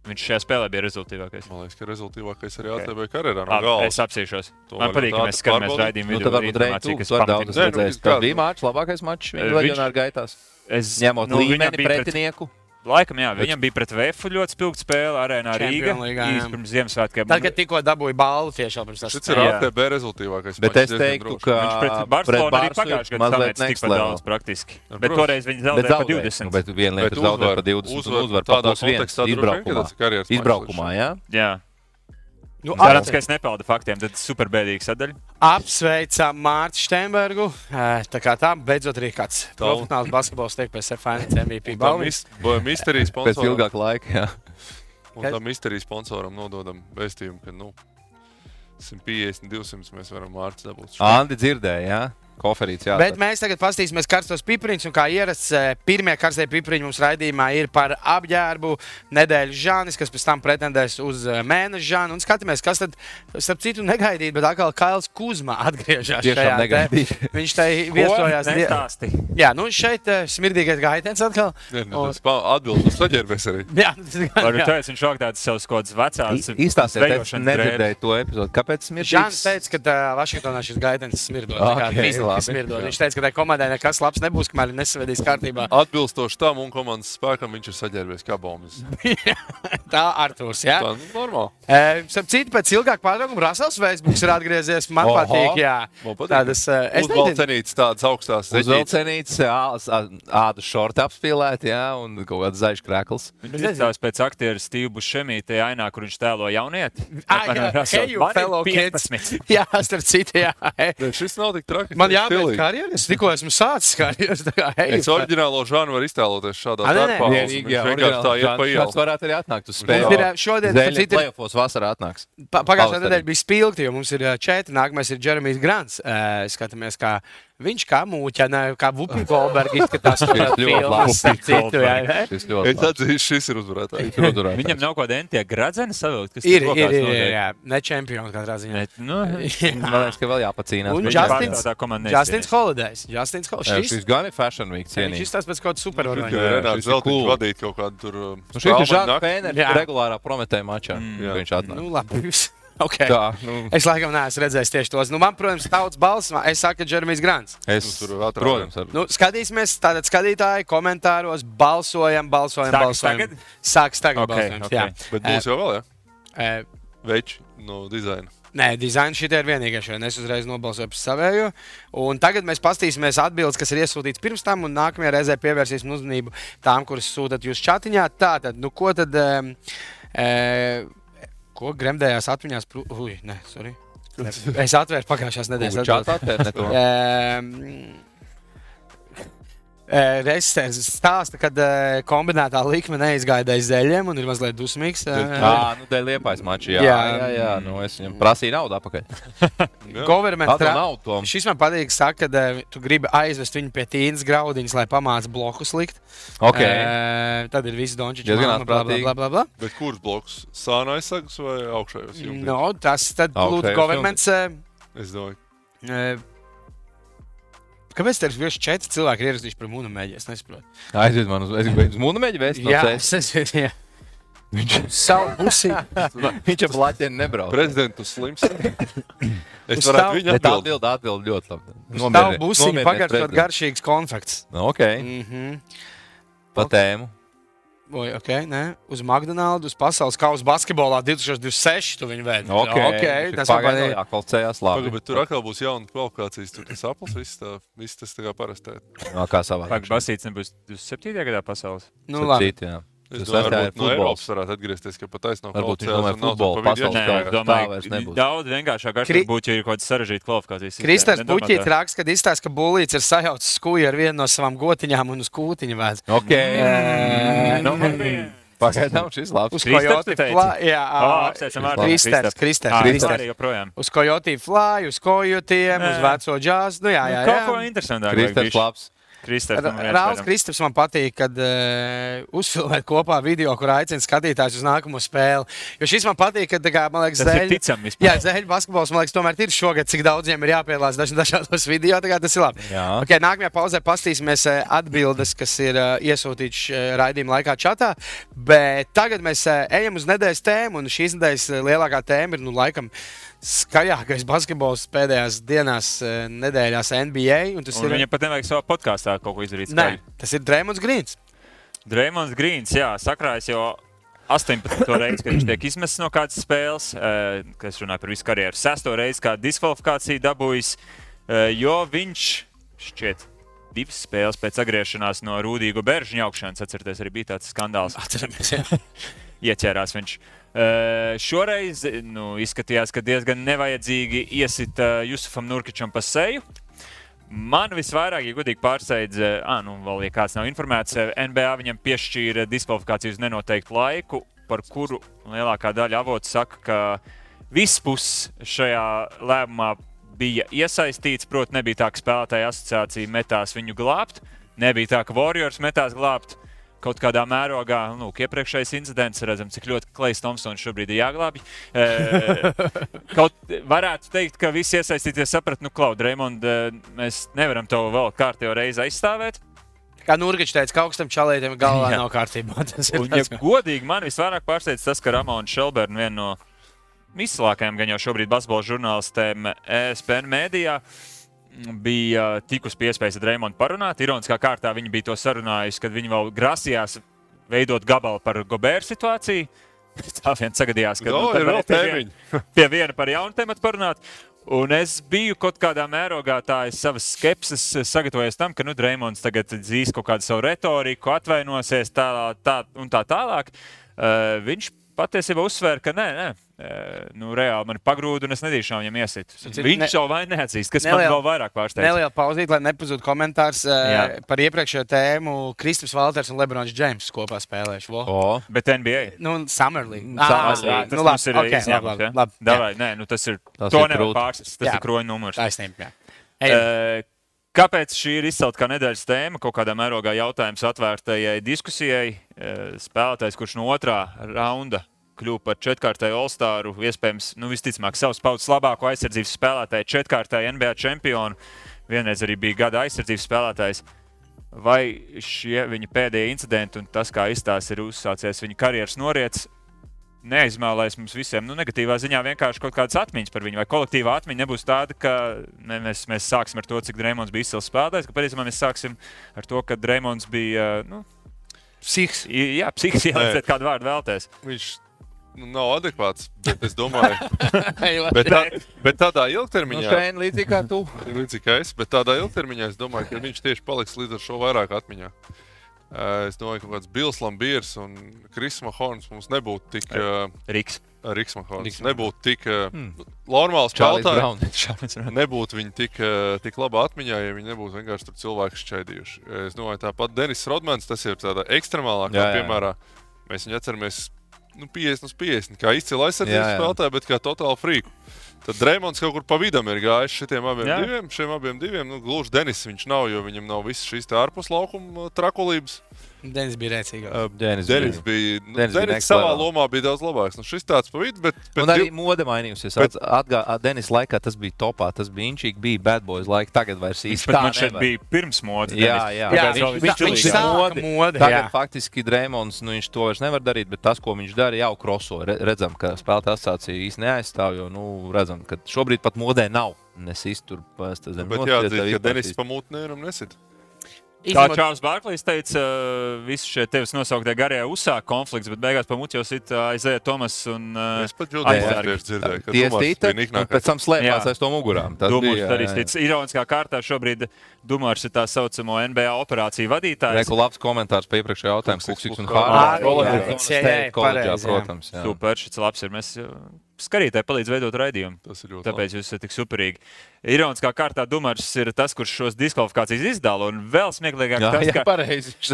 Viņš šajā spēlē bija rezultīvākais. Man liekas, ka rezultīvākais arī ACB karjerā no gala. Es apsīšos. Man patīk, ka mēs skatāmies raidījumu video. Tad varbūt Reitu, kas var daudz redzējis. Tas bija Mārcis labākais mačs viņa leģionāru gaitās. Ņemot līmeni pretinieku. Laikam, jā, viņam bija pret VF ļoti spilgta spēle arēnā Rīga. Pirms Ziemassvētkiem. Tagad tikko dabūja balvu tieši pirms tas. Šis ir ATB rezultīvākais. Bet es teiktu, ka pret Barcelonu arī pagājušajā gadā samēts tikpat daudz praktiski. Bet toreiz viņi zaudēja pa 20. Bet viena lieta zaudēja pa 20 un uzvar pa +1 izbraukumā, jā? Jā. Cerams, ka es nepeldu faktiem, tad superbēdīgi sadaļa. Apsveicam Mārci Steinbergu. Tā kā tā, beidzot arī kāds profesionāls basketbols tiek pēc Se-Finance MVP balvas. Misterijas sponsoram. Pēc ilgāka laika, jā. Un tam misterijas sponsoram nododam vēstījumu, ka 150-200 mēs varam Mārci dabūt. Andi dzirdēja, jā? koferīts, jā. Bet mēs tagad paskatīsimies karstos pipriņus, un kā ierasts, pirmie karstie pipriņi mums raidījumā ir par apģērbu nedēļas žānis, kas pēc tam pretendēs uz mēneša žānu, un skatāmies, kas tad, starp citu negaidīt, bet atkal Kails Kuzma atgriežās šajā. Viņš tai viesojās. Jā, nu šeit smirdīgais gaitens atkal. Tas atbildes saģērbies arī. Jā, tas viņš šāk tāds savus kods vecās. Īstāsiet, es nedzirdēju to epizodu. Kāpēc smirdīgs? Žāns teica, ka Vašingtonā šis gaitens smirdot. Viņš teica, ka tai komandai nekas labs nebūs, kamēr nesvedīs kārtībā. Atbilstoši tam un komandas spēkam viņš ir saģērbies kā bombas. Tā Artūrs, jā? Tā, normāli. Starp citu, pēc ilgāk pārtraukuma Rasels Facebooks ir atgriezies. Man patīk, jā. Tādas uzvalcenītes, tādas augstās zeķītes. Uzvalcenītes, ādu šorti apspīlēt, jā, un kaut kāds zaļš krekls. Viņš izstāvs pēc aktieru Steve Buscemi tajā ainā, kur viņš tēlo jaunieti. Heju, fellow kids. Jā, starp citu, jā. Šis nav tik traki. Man jābeidz karjeras, es tikko esmu sācis karjeras. Es oriģinālo žānu var iztēloties šādā darbā. Vienkārši tā iet pa ielu. Šāds varētu arī atnākt uz spēli. Zeļa play-offos vasarā atnāks. Pagājušā nedēļa bija spilgti, jo mums ir 4. Nākamais ir Jeremijs Grants. Skatāmies, kā viņš kā mūķa, kā Vupi Goldberg izskatās. Es atzīšu, šis ir uzvarētājs. Viņam nav kaut kāda entie gradzeni savilkt, kas ir, jā. Ne čempioni katrā ziņā. Man liekas, ka vēl jāpacīnās. Un Justins Holidays. Šis gan ir Fashion Week cienīgi. Viņš izstāsta pēc kaut kāda superorgaņa. Renāts Zeltiņš vadīt kaut kādu tur... Šis ir Žāns Pēners regulārā Prometēja mačā. Viņš atnāk. Nu, labi. Okay. Tā, Es laikam neesmu redzējis tieši tos. Man, protams, tautas balss, es saku, ka Jeremijs Grants. Protams. Skatīsimies, tātad skatītāji komentāros balsojam. Sāks tagad balsojums. Jā. Bet būs jau vēl, jā? Veči no dizaina. Nē, dizaina šitie ir vienīgais, jo es uzreiz nobalsoju par savējo. Un tagad mēs pastīsimies atbildes, kas ir iesūtīts pirms tam, un nākamajā reizē pievērsīsim uzmanību tām, kuras sūtat jūs čatiņā. Tātad, ko tad... Ko gremdējās atmiņās? Es atvēru pagājušās nedēļas. Čatā atvērt ne to. Reizes stāsta, kad kombinētā likme neizgaidēja zeļiem un ir mazliet dusmīgs. Nu, dēļ Liepājas mači, jā. Es viņam prasīju naudu apakaļ. Šis man patīk, saka, kad tu gribi aizvest viņu pie Tīnas graudiņas, lai pamāc blokus likt. Tad ir visi Dončičs, blablabla. Bet kurš bloks? Sāna aizsagas vai augšējos? No, tas tad lūdzu governments. Es domāju. Kāpēc tev ir 4 cilvēki ierakstījuši par Mūnameģi? Es nesaprotu. Aizvied man uz Mūnameģi vēst? Jā, es aizvied, jā. Viņš savu pusi. Viņš ar Latviju nebrauc. Prezidentu slims. Es varētu viņu atbild ļoti labi. Savu pusi pagaršot garšīgs konfekts. Ok. Pa tēmu. Uz McDonald's, uz pasaules kausa basketbolā 2026 tu viņu vēd. Tas pagaidām jākvalcējās labi. Bet tur atkal būs jauna kvalifikācijas, tur tas apels, viss tas tā kā parastē. Kā savā. Basīts nebūs 27. gadā pasaules? Nu labi. Es domāju, varbūt no Eiropas varētu atgriezties, ka pat taisnāk kvalificējās un nav tur pa vidiem. Daudz vienkāršāk būtu, ja ir kaut kāds sarežģīti kvalifikācijas. Kristers Puķīt raksta, kad izstāsta, ka Bulīts ir sajaucis skuju ar vienu no savām gotiņām un uz kūtiņu vēdz. Pagaidām šis labs. Uz Coyote Fly. Kristers. Uz Coyote Fly, uz Kojotiem, uz veco džāzu. Kaut ko interesantāk. Kristers labs. Rāls Kristaps man patīk, kad uzfilmēt kopā video, kur aicina skatītājus uz nākamo spēli. Jo šis man patīk, kad, man liekas, Zeļu basketbols, man liekas, tomēr ir šogad, cik daudziem ir jāpiedalās dažādos video, tas ir labi. Nākamajā pauzē pastīsimies atbildes, kas ir iesūtīts raidījuma laikā čatā, bet tagad mēs ejam uz nedēļas tēmu, un šīs nedēļas lielākā tēma ir, laikam, skaļākais basketbols pēdējās dienās nedēļās NBA. Viņam pat nevajag savā podkāstā kaut ko izdarīt. Nē, tas ir Draymonds Greens. Draymonds Greens, jā, sakrājas jau 18. reizi, kad viņš tiek izmests no kādas spēles, kas runāja par visu karjeru. 6. reizi, kā diskvalifikāciju dabūjis, jo viņš šķiet 2 spēles pēc atgriešanās no Rūdīgu Beržu ņaukšanas, atcerieties, arī bija tāds skandāls. Atceramies, jā. Ieķērās viņš. Šoreiz izskatījās, ka diezgan nevajadzīgi iesita Jusufam Nurkičam pa seju. Man visvairāk, ja godīgi pārsteidz, vēl, ja kāds nav informēts, NBA viņam piešķīra diskvalifikāciju uz nenoteiktu laiku, par kuru lielākā daļa avotu saka, ka viss puses šajā lēmumā bija iesaistīts, proti nebija tā, ka spēlētāja asociācija metās viņu glābt, nebija tā, ka Warriors metās glābt. Kaut kādā mērogā, iepriekšējais incidents, redzam, cik ļoti Klejs Tomsons šobrīd ir jāglābj. Kaut varētu teikt, ka visi iesaistīties saprat, Draymond, mēs nevaram tev vēl kārtējo reizi aizstāvēt. Kā Nurgičs teica, ka augstam čalētiem galvā nav kārtībā. Un, ja godīgi, man visvairāk pārsteidz tas, ka Ramona Shelburne, viena no izcilākajām gan jau šobrīd basketbola žurnālistēm ESPN mēdījā, bija tikus pie iespējas ar Draymondu parunāt. Ironiskā kārtā viņi bija to sarunājusi, kad viņi vēl grasījās veidot gabalu par Gobert situāciju. Tā vien sagadījās, ka pie viena par jaunu tematu parunāt. Un es biju kaut kādā mērogā savas skepses sagatavojies tam, ka Draymonds tagad dzīs kaut kādu savu retoriku, atvainosies tā tālāk. Viņš patiesībā uzsvēra, ka nē. Reāli man ir pagrūda un es nedīšām viņam iesit. Viņš jau vai neatzīst, kas man vēl vairāk pārsteidz. Neliela pauzīt, lai nepazūd komentārs par iepriekšējo tēmu. Kristaps Valters un Lebrons Džeims kopā spēlējuši. Bet NBA? Summer League. Tas ir izņēmums, ja? Davai, tas ir, to nevar pārsist. Tas ir kroņa numurs. Taisnība, jā. Kāpēc šī ir izcelta kā nedēļas tēma? Kaut kādā mērogā jautājums atvērtajai diskusijai. Spēlētājs, kurš no otrā raunda kļuva par četrkārtēju All-Staru, iespējams, visticamāk, savas paudzes labāko aizsardzības spēlētāju, četrkārtēju NBA čempionu, vienreiz arī bija gada aizsardzības spēlētājs. Vai šie viņa pēdējie incidenti un tas, kā izstāsts ir uzsācies viņa karjeras noriets, neizmēlēs mums visiem negatīvā ziņā vienkārši kaut kādas atmiņas par viņu, vai kolektīvā atmiņa nebūs tāda, ka mēs sāksim ar to, cik Draymonds bija izcils spēlētājs, ka patiesībā mēs sāksim ar to, ka Draymonds bija, psihiks. Jā, psihiks, jālieciet kādu vārdu vēlties. Viņš nav adekvāts, bet es domāju, bet tādā ilgtermiņā, līdzīgi kā tu. Līdzīgi kā es, bet tādā ilgtermiņā es domāju, ka viņš tieši paliks līdz ar šo vairāk atmiņā. Es domāju, ka kaut kāds Bils Lambiers un Kris Mahorns mums nebūtu tik... Riks Mahorns nebūtu tik normāls spēlētājs. Nebūtu viņi tik labā atmiņā, ja viņi nebūtu vienkārši tur cilvēki šķaidījuši. Es domāju, tāpat Denis Rodmans, tas ir tādā ekstremālākā piemērā. Mēs viņu atceramies 50/50, kā izcila aizsardzības spēlētāja, bet kā totāli frīku. Tad Draymonds kaut kur pa vidam ir gājis šiem abiem diviem. Gluži Denis viņš nav, jo viņam nav visas šīs ārpus laukuma trakulības. Denis bija rēcīgāks. Denis savā lomā bija daudz labāks. Šis tāds pa vidu, bet un arī mode mainījusies. Denis laikā tas bija topā, tas bija inčīgi, bija Bad Boys laika, tagad vairs īsti tā nevar. Bija pirms modes. Viņš sāka mode. Tagad faktiski Draymonds, viņš to vairs nevar darīt, bet tas, ko viņš dara, jau kroso. Redzam, ka spēlētāja asociācija īsti neaizstāv, jo, redzam, ka šobrīd pat modē nav. Nesīs tur pēc zem. Bet jāatzīst, ka Denis pa mūtnēram nesit. Kā Čārls Barklīs teica, visi šie tevis nosauktie garie uzsāk konflikts, bet beigās pa muti jau sit Isaiah Thomas un es pat Džudijs dzirdēju, ka Dumars bija niknākais. Pēc tam slēpās aiz to mugurām. Dumars arī stic. Ironiskā kārtā šobrīd Dumars ir tā saucamo NBA operāciju vadītājs. Reku labs komentārs pa iepriekšējā jautājumu. Kuksiks un Hārds. Protams. Super, šis labs ir. Mēs skatītāji palīdz veidot raidījumu. Tāpēc jūs esat tik superīgi. Ironiskā kārtā Dumars ir tas, kurš šos diskvalifikācijas izdala. Un vēl smieklīgāk tas,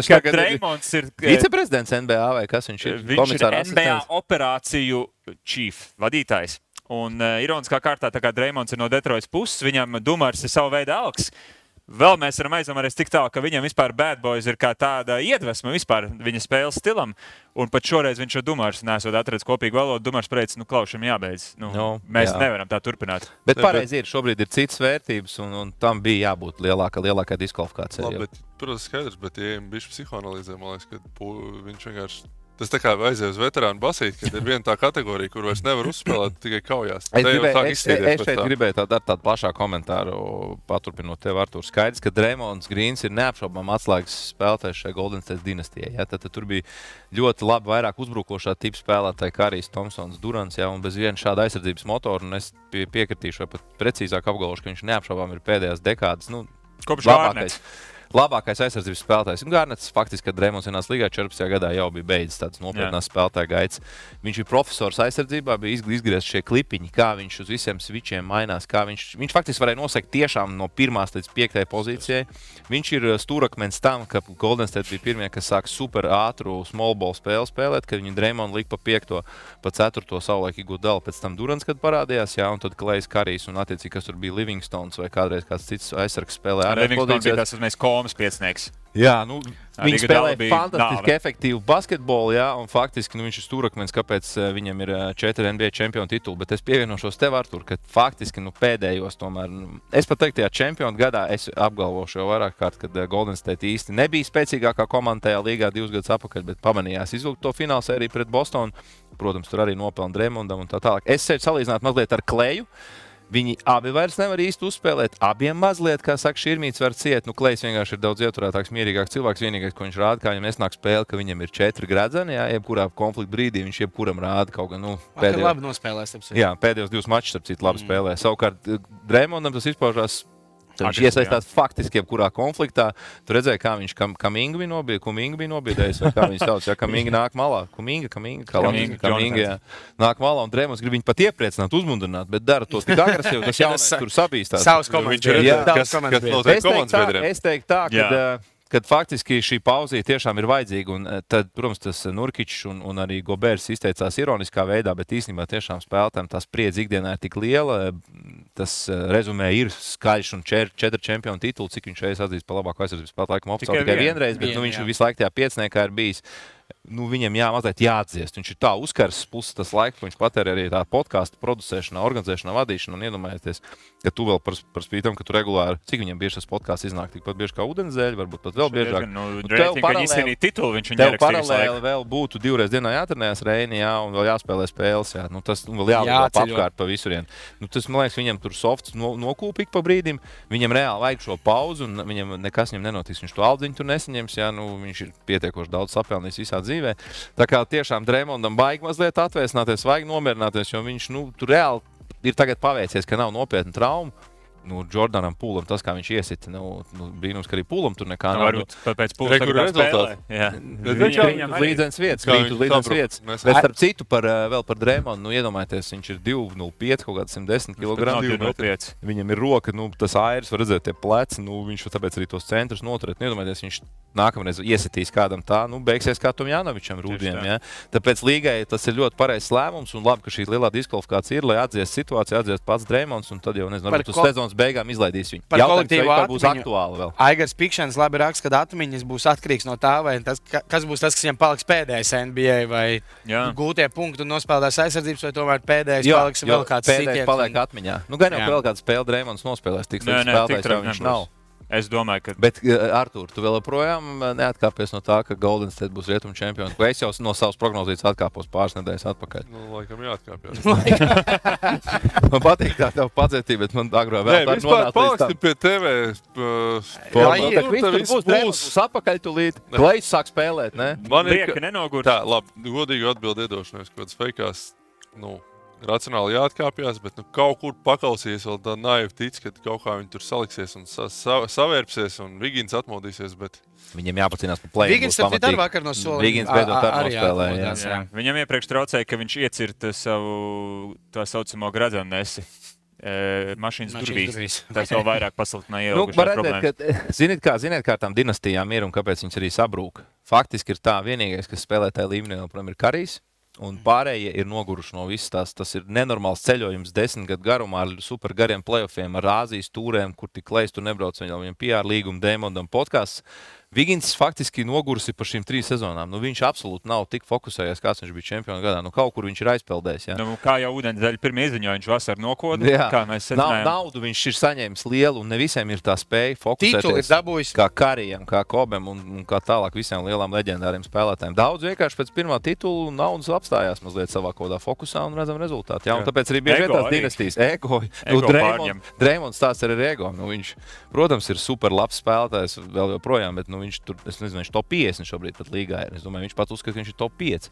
ka Draymonds ir viceprezidents NBA vai kas viņš ir? Viņš ir NBA operāciju chief vadītājs. Un ironiskā kārtā, tā kā Draymonds ir no Detroitas puses, viņam Dumars ir savu veidu alks. Vēl mēs varam aizdomāties tik tālu, ka viņam vispār Bad Boys ir kā tāda iedvesma vispār viņa spēles stilam. Un pat šoreiz viņš šo Dumars nesot atradis kopīgu valodu. Dumars pateica, klaušam jābeidz. Mēs nevaram tā turpināt. Bet pareizi ir, šobrīd ir citas vērtības un tam bija jābūt lielākai diskvalifikācijai. Labi, bet, protams, skaidrs, bet ja bišķi psihoanalīzē, man liekas, ka viņš vienkārši... Tas tā kā aizies uz veterānu basīt, kad ir viena tā kategorija, kur vairs nevar uzspēlēt tikai kaujās. Es šeit gribēju tādu plašāku komentāru, paturpinot tev, Artur. Skaidrs, ka Draymonds Greens ir neapšaubām atslēgas spēlētājs šai Golden State dinastijai. Tad tur bija ļoti labi vairāk uzbrukošā tipa spēlētāji, Karijs, Tomsons, Durants, un bez viena šāda aizsardzības motora. Un es piekritīšu, vai pat precīzāk apgalvošu, ka viņš neapšaubām ir pēdējās dekādas kopš labākais. labākais aizsardzības spēlētājs. Garnets faktiski, kad Drēmons ienāca līgā 14. gadā, jau bija beidzis tāds nopietnās spēlētāja gaids. Viņš bija profesors aizsardzībā, bija izgriezts šie klipiņi, kā viņš uz visiem svičiem mainās, kā viņš faktiski varēja nosekt tiešām no 1. līdz 5. pozīcijai. Viņš ir stūrakmens tam, ka Golden State bija pirmie, kas sāk super ātru small ball spēli spēlēt, kad viņi Drēmonu lika pa 5., pa 4. savulaik Iguodala, pēc tam Durants, kad parādījās, jā, un tad Klejs Karijs un attiecīgi, kas tur bija Livingstons vai kādreiz kāds cits aizsargs spēlē. Livingstons bija tas mēs komas piecnieks. Jā, viņi spēlē fantastiski efektīvu basketbolu, jā, un faktiski viņš ir stūrakmens, kāpēc viņam ir 4 NBA čempionu tituli, bet es pievienošos tev, Artur, ka faktiski pēdējos tomēr, es pat teiktu, tajā čempionu gadā es apgalvošu jau vairāk kārt, kad Golden State īsti nebija spēcīgākā komanda tajā līgā 2 gadus atpakaļ, bet pamanījās izvilkt to finālsēriju pret Bostonu, protams, tur arī nopelna Drēmondam un tā tālāk. Es sevi salīdzinātu mazliet ar Kleju. Viņi abi vairs nevar īsti uzspēlēt. Abiem mazliet, kā saka, šķirmīts var ciet. Klejs vienkārši ir daudz ieturētāks, mierīgāks cilvēks. Vienīgais, ko viņš rāda, kā viņam nesnāk spēle, ka viņam ir 4 gredzeni. Jā, jebkurā konflikta brīdī viņš jebkuram rāda kaut gan. Labi nospēlēs. Jā, pēdējos 2 mačus, starp citu, labi spēlē. Savukārt Drēmondam tas izpaužās. Viņš iesaistās faktiski jebkurā konfliktā. Tu redzēji, kā viņš Kuminga bija nobiedējis, vai kā viņš sauc. Jā, Kuminga nāk malā. Kuminga nāk malā, un Drēmons grib viņu pat iepriecināt, uzmundrināt, bet dara to tik agresīvi, tas jaunais tur sabīstās. Savs komandas. Es teiktu tā, kad faktiski šī pauzija tiešām ir vajadzīga, un tad, protams, tas Nurkičs un arī Gobers izteicās ironiskā veidā, bet īstenībā tiešām spēlētājiem tā spriedze ikdienā ir tik liela, tas rezumē ir skaļš un 4 čempionu tituli, cik viņš reiz atzīst par labāko aizsardzības spēlētāju, laikam oficiāli tikai vienreiz, bet viņš visu laiku tajā piecniekā ir bijis. Viņam mazliet jāatdziest. Viņš ir tā uzkars, plus tas laiks, ko viņš patērē arī tā podkāstu producēšanā, organizēšanā, vadīšanā. Un iedomājieties, ka tu vēl par spītam, ka tu regulāri, cik viņam bieži tas podkāsts iznāk, tikpat bieži kā ūdenzēļi, varbūt pat vēl biežāk. Tev paralēli vēl būtu 2 reizes dienā jātrenējas Reini, jā, un vēl jāspēlē spēles, jā. Tas vēl jāliek apkārt pa visurien. Tas, man liekas, viņam tur softs nokūp ik pa brīdim, viņam reāli vajag šo pauzu, un viņam nekas nenotiks. Viņš to aldziņu tur nesaņems, jā, viņš ir pietiekoši daudz sapelnījis visā dzīvē. Tā kā tiešām Drēmondam baigi mazliet atvēsināties, vajag nomierināties, jo viņš tur reāli ir tagad paveicies, ka nav nopietna trauma. Jordanam Pūlam tas, kā viņš iesita, brīnums, ka arī Pūlam tur nekā nav. Varbūt pēc Pūlam tagad spēlē. Viņam līdzenes vietas. Bet starp citu vēl par Drēmondu, iedomājieties, viņš ir 2,05, kaut kāds 110 kg. Viņam ir roka, tas airs, var redzēt tie pleci, viņš tāpēc arī tos centrus noturēt. Iedomājieties, viņš nākamreiz iesitīs kādam tā, beigsies kā Tomjanovičam Rūdiem. Ja? Tāpēc līgai tas ir ļoti pareizs lēmums un labi, ka šī lielā diskvalifikācija ir, lai atdziest situāciju, atdziest pats Drēmonds un tad jau, nezinu, varbūt uz sezonas beigām izlaidīs viņu. Par kolektīvu būs aktuāli vēl. Aigars Pikšanas labi raksta, ka atmiņas būs atkarīgs no tā, vai kas būs tas, kas viņam paliks pēdējais NBA, vai gūtie punkti un nospēlētās aizsardzības, vai tomēr pēdējais paliks vēl kāds sitiens. Pēdējais paliek atmiņā. Gan jau vēl kādu spēli Drēmonds nospēlēs, tik spēlētājs jau viņš nav. Es domāju, ka... Bet, Artur, tu vēl joprojām neatkāpies no tā, ka Golden State būs rietumu čempioni. Es jau no savas prognozijas atkāpos pāris nedēļas atpakaļ. Laikam jāatkāpjas. Man patīk tā tev pacietība, bet man agrā vēl tā nonāca līdz tam. Paliksti pie TV. Viņš tur būs atpakaļ tūlīt. Klejs sāk spēlēt, ne? Man ir, ka nenogurt. Tā, labi, godīgi atbildi iedošanos, kaut kāds feikās, racionāli jāatkāpjas, bet kaut kur paklausījies vēl tā naivi tic, ka kaut kā viņi tur saliksies un savērpsies un Vigins atmodīsies, bet... Viņam jāpacīnās par play-in. Vigins ar citāru vakar no sola. Vigins beidzot ar nospēlē. Viņam iepriekš traucēja, ka viņš iecirta savu tā saucamo gradzennesi. Mašīnas durvīs. Tas vēl vairāk pasliktināja ieilgušās problēmas. Ziniet, kā tām dinastijām ir un kāpēc viņas arī sabrūk. Faktiski ir tā vienīgais, kas spēlē tajā līmenī, joprojām ir Karijs. Un pārējie ir noguruši no visas tās. Tas ir nenormāls ceļojums 10 gadu garumā ar super gariem playoffiem, ar Āzijas tūrēm, kur tik Klejs tur nebrauc, viņam PR līguma Drēmondam podkāsts. Vigins faktiski nogurusi par šīm 3 sezonām. Viņš absolūti nav tik fokusējies, kāds viņš bija čempionu gadā. Kaut kur viņš ir aizpeldējis. Ja? Kā jau ūdensdaļa pirmie izziņoja, viņš vasar nokoda. Kā mēs secinājām. Naudu viņš ir saņēmis lielu, un ne visiem ir tā spēja fokusēties. Tituli ir dabūjis. Kā Karijam, kā Kobem un kā tālāk visiem lielām leģendāriem spēlētājiem. Daudz vienkārši pēc pirmā titulu naudas apstājās mazliet savā kodā fokusā un redzam rezultātu. Ja? Un tāpēc arī bieži tās dinastijas ego. Drēmonds tāds ir ego. Viņš, protams, ir super labs spēlētājs vēl joprojām, bet viņš tur, es nezinu, viņš top 50 šobrīd pat līgā ir. Es domāju, viņš pat uzskata, ka viņš ir top 5.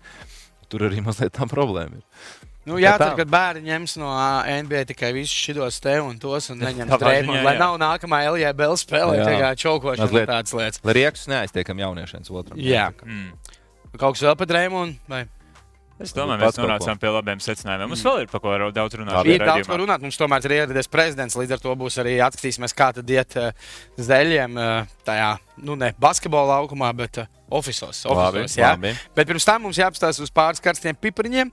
Tur arī mazliet tā problēma ir. Nu, jācer, ka bērni ņems no NBA tikai visus šitos te un tos un neņems Dreymondu, lai nav nākamā LJBL spēlē tikai čaukošana tādas lietas. Lai riekus neaiztiekam jauniešiem otram. Jā. Kaut kas vēl par Dreymondu? Vai? Es domāju, mēs nonācām pie labiem secinājumiem. Mums vēl ir par ko daudz runāt. Ir daudz ko runāt. Mums tomēr ir ieradies prezidents, līdz ar to būs arī atskatīsimies, kā tad iet Zeļiem tajā, basketbola laukumā, bet ofisos, jā. Bet pirms tam mums jāapstāsta uz pāris karstiem pipariņiem.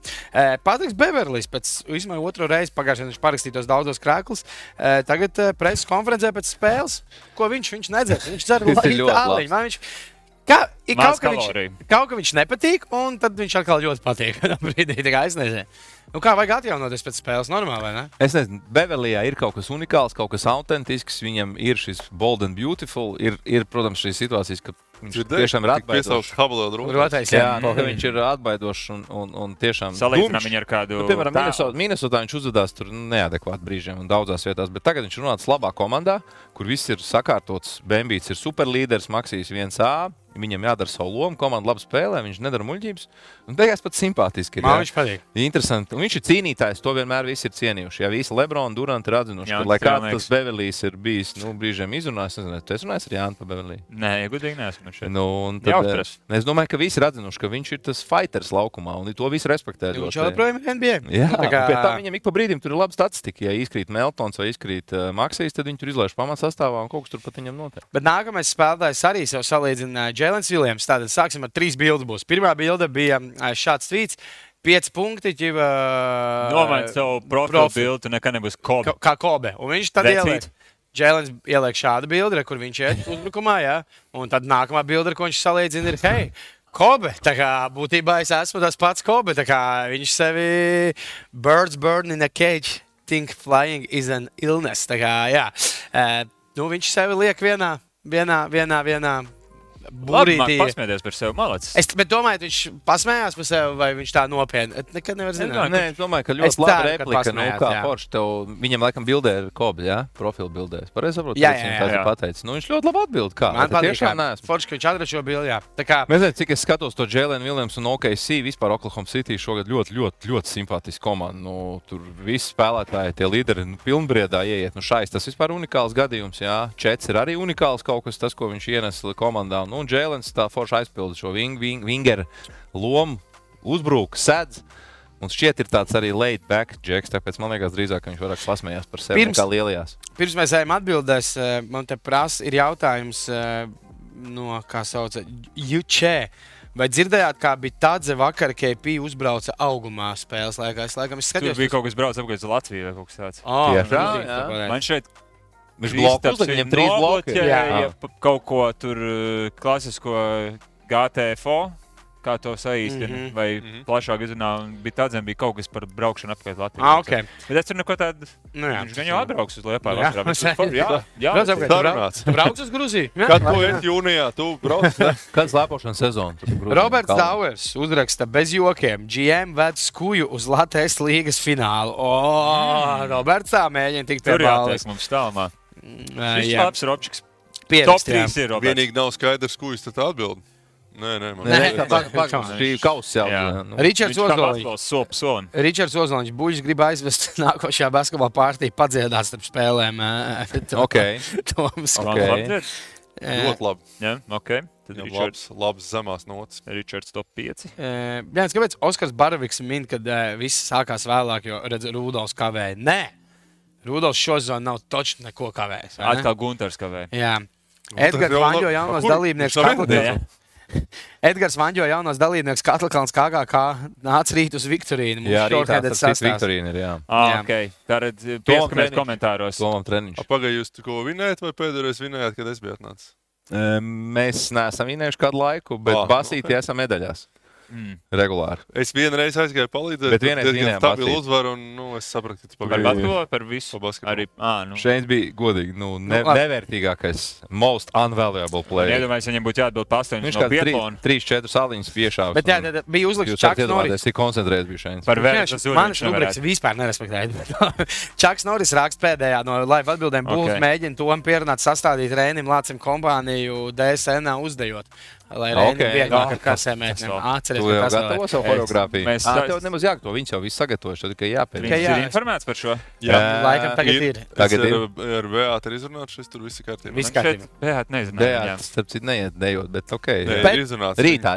Patriks Beverlijs pēc vismaz otro reizi pagājušajā viņš parakstītos daudzos krēklus. Tagad preses konferencē pēc spēles, ko viņš nedzēs. Viņš dzer aliņu. Kaut kā viņš nepatīk, un tad viņš atkal ļoti patīk. Es nezinu. Kā vajag atjaunoties pēc spēles? Normāli, vai ne? Es nezinu. Beverlijā ir kaut kas unikāls, kaut kas autentisks. Viņam ir šis bold and beautiful. Ir protams, šīs situācijas, ka viņš tiešām ir atbaidošs. Viņš ir atbaidošs un tiešām salīdzinām viņu ar kādu. Piemēram, Minnesotā viņš uzvedās tur neadekvāti brīžiem un daudzās vietās, bet tagad viņš runāts labā komandā, kur viss ir sakārtots. Bembīts ir superlīderis, Maksijs 1A. Viņam jādara savu lomu, komanda labi spēlē, viņš nedara muļķības. Un beigās pat simpātiski ir. Man viņš patīk. Interesanti. Un viņš ir cīnītājs, to vienmēr visi ir cienījuši. Ja visi Lebroni, Duranti ir atzinuši, lai kāds tas Beverlijs ir bijis, brīžiem izrunājis. Tu esi runājis ar Jānu par Beverliju? Nē, godīgi neesmu šeit. Es domāju, ka visi ir atzinuši, ka viņš ir tas fighters laukumā, un to visi respektē. Viņš joprojām ir NBA. Jā, pēc tam viņam ik pa brīdim tur ir laba statistika. Ja izkrīt Meltons vai izkrīt Maksijs, tad viņi tur izlaiž pamatsastāvā un kaut kas tur pat viņam notiek. Bet nākamais spēlētājs arī sev salīdzina Jēlens Viljams. Tātad sāksim ar 3 bildes būs. Pirmā bilde bija šāds tvīts. 5 punkti. Nomaini savu profilu bildi, nekad nebūs Kobe. Kā Kobe. Un viņš tad ieliek. Jēlens ieliek šādu bildi, kur viņš iet uzbrukumā, jā. Un tad nākamā bilde, ko viņš salīdzina, ir hei, Kobe. Tā kā būtībā es esmu tas pats Kobe. Tā kā viņš sevi birds burn in a cage, think flying is an illness. Tā kā, jā. Viņš sevi liek vienā Labi, pasmēties par sevi, malacis. Bet domāju, viņš pasmējās par sevi, vai viņš tā nopietni? Nekad nevar zināt. Nē, es domāju, ka ļoti laba replika. Kā forši tev, viņam laikam bildē ir Kobe, jā? Profilu bildēs. Pareizi saprotu, viņš pateicis. Viņš ļoti labi atbild. Kā? Man patīk, forši, ka viņš atrada šo bildi, jā. Mēs zinām, cik es skatos to Jēlenu Viljamsu un OKC, vispār Oklahoma City šogad ļoti simpātiski komanda. Tur visi spēlētāji, tie līderi pilnbriedā ieiet. Šais tas vispār unikāls gadījums, jā. Čets ir arī unikāls kaut kas, tas, ko viņš ienes komandā. Un Jēlens tā forši aizpilda šo wingeru lomu, uzbrūk, sedz. Un šķiet ir tāds arī laid back džeks, tāpēc man liekas drīzāk, ka viņš vairāk pasmējās par sevi nekā lielajās. Pirms mēs ejam atbildēs, man te prasa, ir jautājums no, kā sauca, Jučē. Vai dzirdējāt, kā bija Tadze vakar, KP uzbrauca augumā spēles laikā? Es skatījos. Tur bija kaut kas brauc apgājis uz Latviju vai kaut kas tāds. Jā. Man šeit viņš blokus, viņam 3 bloki. Ja kaut ko tur klasisko GTFO, kā to saīstina, vai plašāk izrunā, bija tādzēm bija kaut kas par braukšanu apkārt Latviju. Okay. Bet es tur neko tādu, viņš gan jau atbrauks uz Liepāju vasarā. Tu brauc uz Gruziju? Kad tu esi jūnijā, tu brauc? Kāds slēpošanas sezona? Roberts Dauers uzraksta bez jokiem. GM ved skuju uz Latvijas līgas finālu. Roberts tā mēģina tikt pie balvas. Tur jātiek mums tālumā. Šis labs Robčiks. Top 3 ir Roberts. Vienīgi nav skaidrs, ko jūs tad atbild. Nē, šī kausa jau. Ričards Ozoliņš buļģis grib aizvest nākošajā basketbola pārtī padziedāt starp spēlēm. Ļoti labi. Jā, ok. Labs zemās notas. Ričards top 5. Jā, kāpēc Oskars Baraviks min, kad viss sākās vēlāk, jo redz, Rudolfs kavēja? Nē! Rudolfs šo zonu nav točni neko kavējis. Atkal Gunters kavēja. Jā. Edgars Vaņģo jaunos dalībnieks Edgars Vaņģo jaunos dalībnieks Katlkalns KGK nāca rīt uz Viktorīnu. Jā, rītā Viktorīna ir, jā. Ok. Tātad pieskamies komentāros. Tomam treniņš. Pagaid, jūs ko vinējat vai pēdējais vinējat, kad es biju atnācis? Mēs neesam vinējuši kādu laiku, bet basīti esam medaļās. Regulāri. Es vienreiz aizgāju palīdzēt, bet diezgan stabilu uzvaru, un es sapratu, ka tu pagaidi. Par visu? Arī, Šeit bija godīgi, nevērtīgākais, most unvaluable player. Iedomājies, viņam būtu jāatbild pa 8 no Pietlona. 3-4 saliņas piešāvis. Bet jā, bija uzlikts Čaks Norris. Es tik koncentrējies biju šeit. Par vērts tas manis rubriks vispār nerespektēja. Čaks Norris raksta pēdējā no live atbildēm. Bulls mēģina Tomu pierunāt sastādīt Rēnim Lācim kompāniju DSN uzdejot. lai Reinim vieglāk ar kasēm mēģinām. Atceries, tu jau gatavo savu choreogrāfiju. Tev nemaz jāgatavo, viņš jau viss sagatavojuši, tad tikai jāpēd. Viņš ir informēts par šo? Jā, laikam tagad ir. Tagad ir. Ar Beātu ir izrunāts, šis tur viss ir kārtībā. Viss kārtībā. Beātu neizrunāt. Beātu, starp citu, neiet dejot, bet okei. Ir izrunāts. Rītā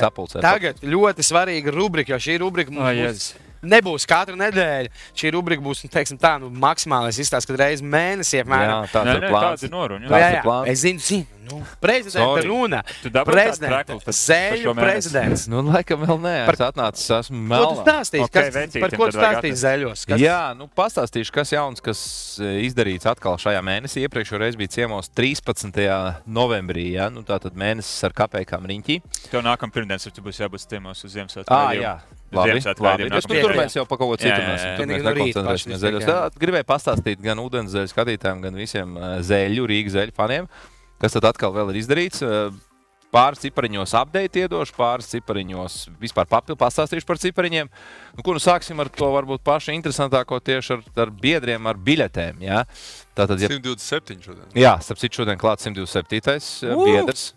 sapulcē. Tagad ļoti svarīga rubrika, jo šī rubrika mums nebūs katru nedēļu. Šī rubrika būs, teiksim tā, maksimālais izstāsts, kad reizi mēnesī apmēram. Jā, tāds ir plāns. Tāds ir noruņa. Jā, es zinu. Prezidenta runa. Prezidents. Zēļu prezidents. Laikam vēl nē. Es atnācis, esmu melnā. Ko tu stāstīsi? Par ko tu stāstīsi Zēļos? Jā, pastāstīšu, kas jauns, kas izdarīts atkal šajā mēnesī. Iepriekšējo reizi bija ciemos 13. novembrī, ja? Tātad mēnesis ar kapējkām riņķī. Tev nākam pirmdienas, tu būs jābūt ciemos uz Ziemassvētku. Jā. Labi. Tur mēs jau pa kaut ko citu runāsim. Tur mēs nekoncentrēsimies Zēļos. Gribēju pastāstīt gan ūdenszeļu skatītājiem, gan visiem Rīgas zeļu faniem, kas tad atkal vēl ir izdarīts. Pāris cipariņos update iedošu, pāris cipariņos vispār pastāstīšu par cipariņiem. Sāksim ar to varbūt pašu interesantāko tieši ar biedriem, ar biļetēm. Ja? Tātad, 127 šodien. Jā, starp citu šodien klāt 127. Biedrs.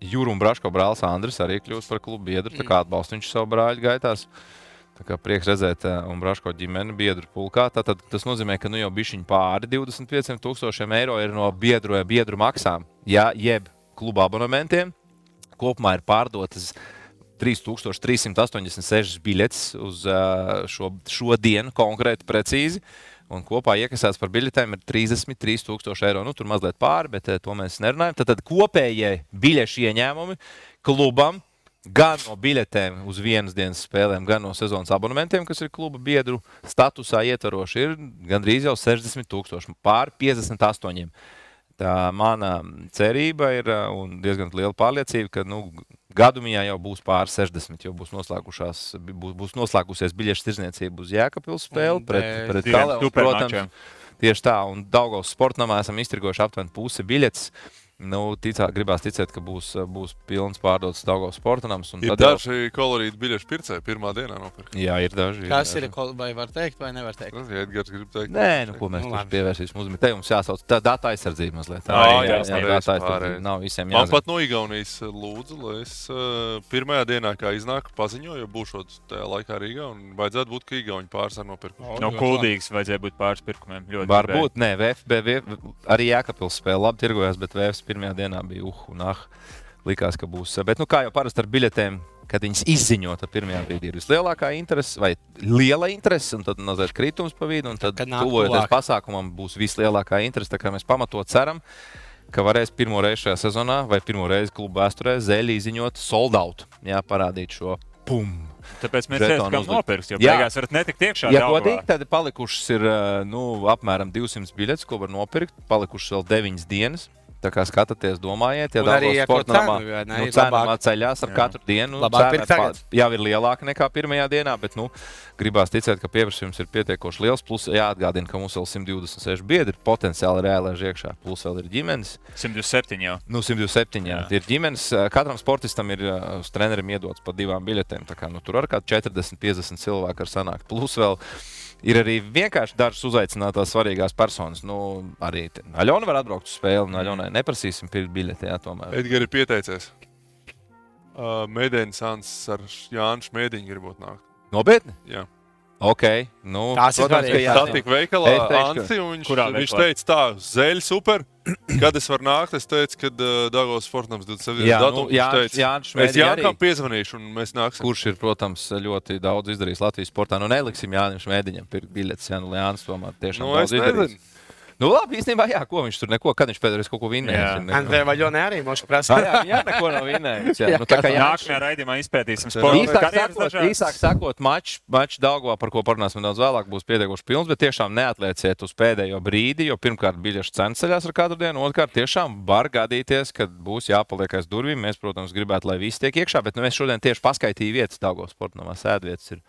Jūru un Braško brālis Andris arī kļūst par klubu biedru, tā kā atbalsta viņš savu brāļu gaitās. Tā kā prieks redzēt un Braško ģimeni biedru pulkā. Tātad tas nozīmē, ka jau bišķiņ pāri 25,000 eiro ir no biedru maksām, ja, jeb kluba abonementiem. Kopumā ir pārdotas 3386 biļetes uz šo dienu konkrēti precīzi. Un kopā iekasēts par biļetēm ir 33,000 eiro. Tur mazliet pāri, bet to mēs nerunājam. Tad kopējie biļešu ieņēmumi klubam gan no biļetēm uz vienas dienas spēlēm, gan no sezonas abonementiem, kas ir kluba biedru statusā ietvaroši, ir gandrīz jau 60,000, pāri 58. Tā mana cerība ir un diezgan liela pārliecība, ka gadumiņā jau būs pāri 60, jo būs noslēgusies biļešu tirzniecība uz Jēkabpils spēli pret Kalēnu, protams. Tieši tā, un Daugavas sportnamā esam iztirgojuši aptuveni pusi biļetes. Gribās ticēt, ka būs pilns pārdots Daugavas sportnams. Ir daži kolorīti biļešu pircēji pirmā dienā nopirkt. Jā, ir daži. Kas ir, vai var teikt, vai nevar teikt? Edgars grib teikt. Nē, ko mēs tur pievērsīsim uzmanību. Te jums jāsauc data aizsardzība mazliet. Jā, data aizsardzība nav visiem jāzina. Man pat no Igaunijas lūdzu, lai es pirmajā dienā, kā iznāku, paziņoju, jo būšot tajā laikā Rīgā, un vajadzētu būt, ka Igauni pāris ar nopirkumu. No Kuldīgas vajadzēja būt pāris pirkumiem. Varbūt, nē, VfB arī Jēkabpils spēle labi tirgojās, bet VfB pirmajā dienā bija likās, ka būs. Bet, kā jau parasti ar biļetēm, kad viņas izziņota pirmajā brīdī ir vislielākā interese vai liela interese, un tad mazliet kritums pa vidu, un tad tuvojoties pasākumam būs vislielākā interese. Tā kā mēs pamatot ceram, ka varēs pirmo reizi šajā sezonā vai pirmo reizi kluba vēsturē Zeļi izziņot sold out. Jā, parādīt šo pum. Tāpēc mēs redzam, nopirks, jo beigās varat netikt iekšā. Ja godīgi, tad palikušas ir apmēram 200 biļetes, ko var nopirkt. Palikušas vēl 9 dienas. Tā kā skatāties, domājiet, ja Daugavas sportnamā cena ceļās ar katru dienu. Cena jau ir lielāka nekā pirmajā dienā, bet gribās ticēt, ka pieprasījums ir pietiekoši liels. Plus jāatgādina, ka mums vēl 126 biedri potenciāli reālēž iekšā. Plus vēl ir ģimenes. 127 jau. 127, jā. Ir ģimenes. Katram sportistam ir uz trenerim iedots pa 2 biļetēm. Tā kā tur ar kādu 40-50 cilvēku ar sanākt. Plus vēl ir arī vienkārši dažas uzaicinātās svarīgās personas. Arī Aļona var atbraukt uz spēli, un Aļonai neprasīsim pirkt biļeti, jā, tomēr. Edgars ir pieteicies. Mēdēnis Sans ar Jānu Šmēdiņu gribot nākt. Nopietni? Jā. Ok. Tās ir svarīgi. Tā tika veikalā Ansi, un viņš teica tā, Zeļi super. Kad es varu nākt, es teicu, kad Daugavas sportnams 27. datums. Es Jānkam piezvanīšu, un mēs nāksim. Kurš ir, protams, ļoti daudz izdarījis Latvijas sportā. Neliksim Jānim Šmēdiņam pirkt biļetes, Jānis tomēr tiešām daudz izdarījis. Labi, īstenībā, jā, ko viņš tur neko, kad viņš pēdējais kaut ko vinnējis. Andrē Vaļonē arī mošu prasa. Jā, neko nav vinnējis. Tā kā nākamajā raidījumā izpētīsim sportu. Īsāk sakot, mačs Daugavā, par ko parunāsim daudz vēlāk, būs pietiekoši pilns, bet tiešām neatlieciet uz pēdējo brīdi, jo pirmkārt biļešu cenas ceļās ar katru dienu, otrkārt tiešām var gadīties, kad būs jāpaliek aiz durvīm. Mēs, protams, gribētu, lai visi tiek iekšā, bet mēs šodien tieši paskaitīju vietas Daugavas sportnamā, sēdvietas ir.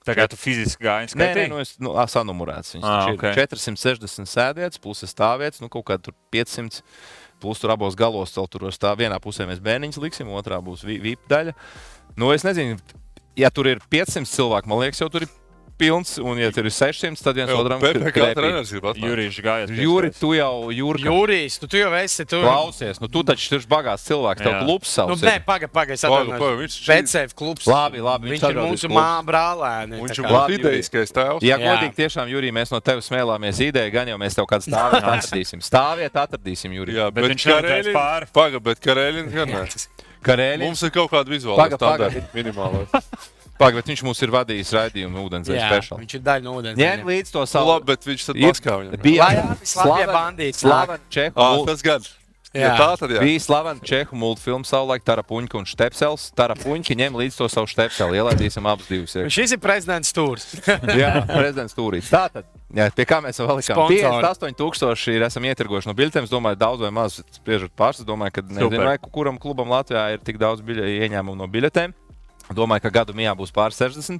Tā kā tu fiziski gāji skaitīgi? Nē, es sanumurēts. Viņas ir 460 sēdvietas, plus stāvvietas, kaut kā tur 500, plus tur abos galos tur stāv. Vienā pusē mēs bērniņus liksim, otrā būs VIP daļa. Es nezinu, ja tur ir 500 cilvēku, man liekas, jau tur ir pilns, un, ja tur ir 600, tad viens otram PPK treneris grib atnākt. Jurijs gājas. Juri, tu jau Jurijs, tu jau esi tur. Klausies, nu tu taču ir bagāts cilvēks, tev klubs savs. Nu, nē, pagaid, es atvainojos. Vecēv klubs. Labi, viņš ir mūsu brālēni. Viņš ir mūsu ideiskais tēvs. Ja godīgi tiešām, Jurij, mēs no tevis smēlāmies ideju, gan jau mēs tev kādu stāvietu atradīsim, Jurij. Jā, bet Karēļins gan nē. Mums ir kaut kāda vizuāla standarta minimālais. Bet viņš mums ir vadījis raidījumu ūdenzēļu speciāli. Viņš ir daļa no ūdenzēļa. Ņem līdz to savu. Labi, bet viņš tad maskā viņam. Bija slavena Čehu. Tas gan. Jā, bija slavena Čehu multfilmu savulaik Tarapuņka un Štepsels. Tarapuņka ņem līdz to savu Štepseli. Ielaidīsim abus divus. Šis ir prezidents Tūrs. Jā, prezidents Tūrīs. Tātad, pie kā mēs vēl likām? 58,000 ir esam ietirgojuši no biļetēm. Es domāju, daudz vai maz spriežot pāris. Es domāju, ka nezinu, vai kuram klubam Latvijā ir tik daudz ieņēmumu no biļetēm. Domāju, ka gadu mijā būs pār 60.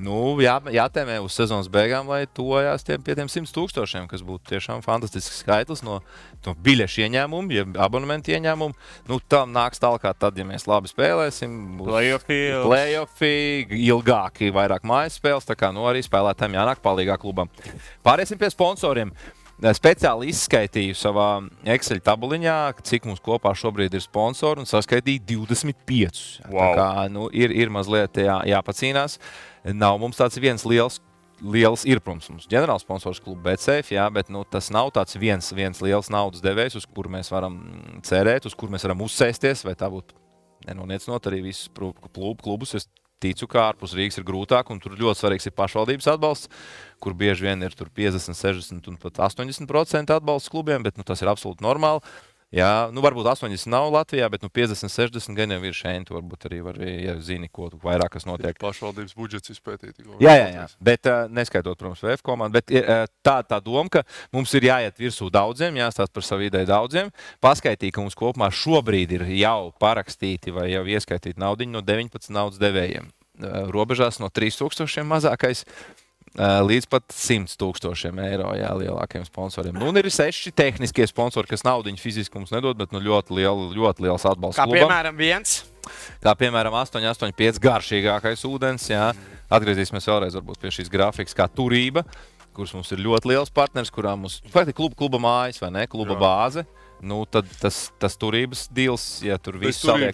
Nu, jātēmē uz sezonas beigām, lai tojās pie tiem 100,000, kas būtu tiešām fantastisks skaitlis no biļešu ieņēmumu, ja abonementu ieņēmumu. Nu, tam nāks tālāk tad, ja mēs labi spēlēsim. Play-offi, ilgāki, vairāk mājas spēles, tā kā arī spēlētājiem jānāk palīgā klubam. Pāriesim pie sponsoriem. Speciāli izskaitīju savā Excel tabuliņā, cik mums kopā šobrīd ir sponsori, un saskaitīju 25. Wow. Tā kā ir mazliet jāpacīnās. Nav mums tāds viens liels ir, protams, mums ģenerāls sponsors kluba BetSafe, bet tas nav tāds viens liels naudas devējs, uz kuru mēs varam cerēt, uz kuru mēs varam uzsēsties, vai tā būtu nenoniecot arī visus klubus. Es ticu, ka ārpus Rīgas ir grūtāk, un tur ļoti svarīgs ir pašvaldības atbalsts, kur bieži vien ir 50, 60 un pat 80% atbalsts klubiem, bet tas ir absolūti normāli. Jā, varbūt 80 nav Latvijā, bet 50, 60 gan jau ir šeit. Varbūt arī ja zini, ko vairāk kas notiek. Pašvaldības budžets izpētīt. Jā, bet neskaitot, protams, VF komandu. Bet tā doma, ka mums ir jāiet virsū daudziem, jāstāst par savu ideju daudziem. Paskaitīt, ka mums kopumā šobrīd ir jau parakstīti vai jau ieskaitīti naudiņi no 19 naudas devējiem. Robežās no 3,000 mazākais līdz pat 100,000 eiro lielākiem sponsoriem. Un ir 6 tehniskie sponsori, kas naudiņu fiziski mums nedod, bet ļoti liels atbalsts klubam. Kā piemēram viens? Kā piemēram 885 garšīgākais ūdens. Jā. Atgriezīsimies vēlreiz varbūt pie šīs grafikas kā Turība, kurš mums ir ļoti liels partners, kurā mums faktiski kluba mājas vai ne, kluba bāze. Tad tas Turības deals, ja tur viss saliek.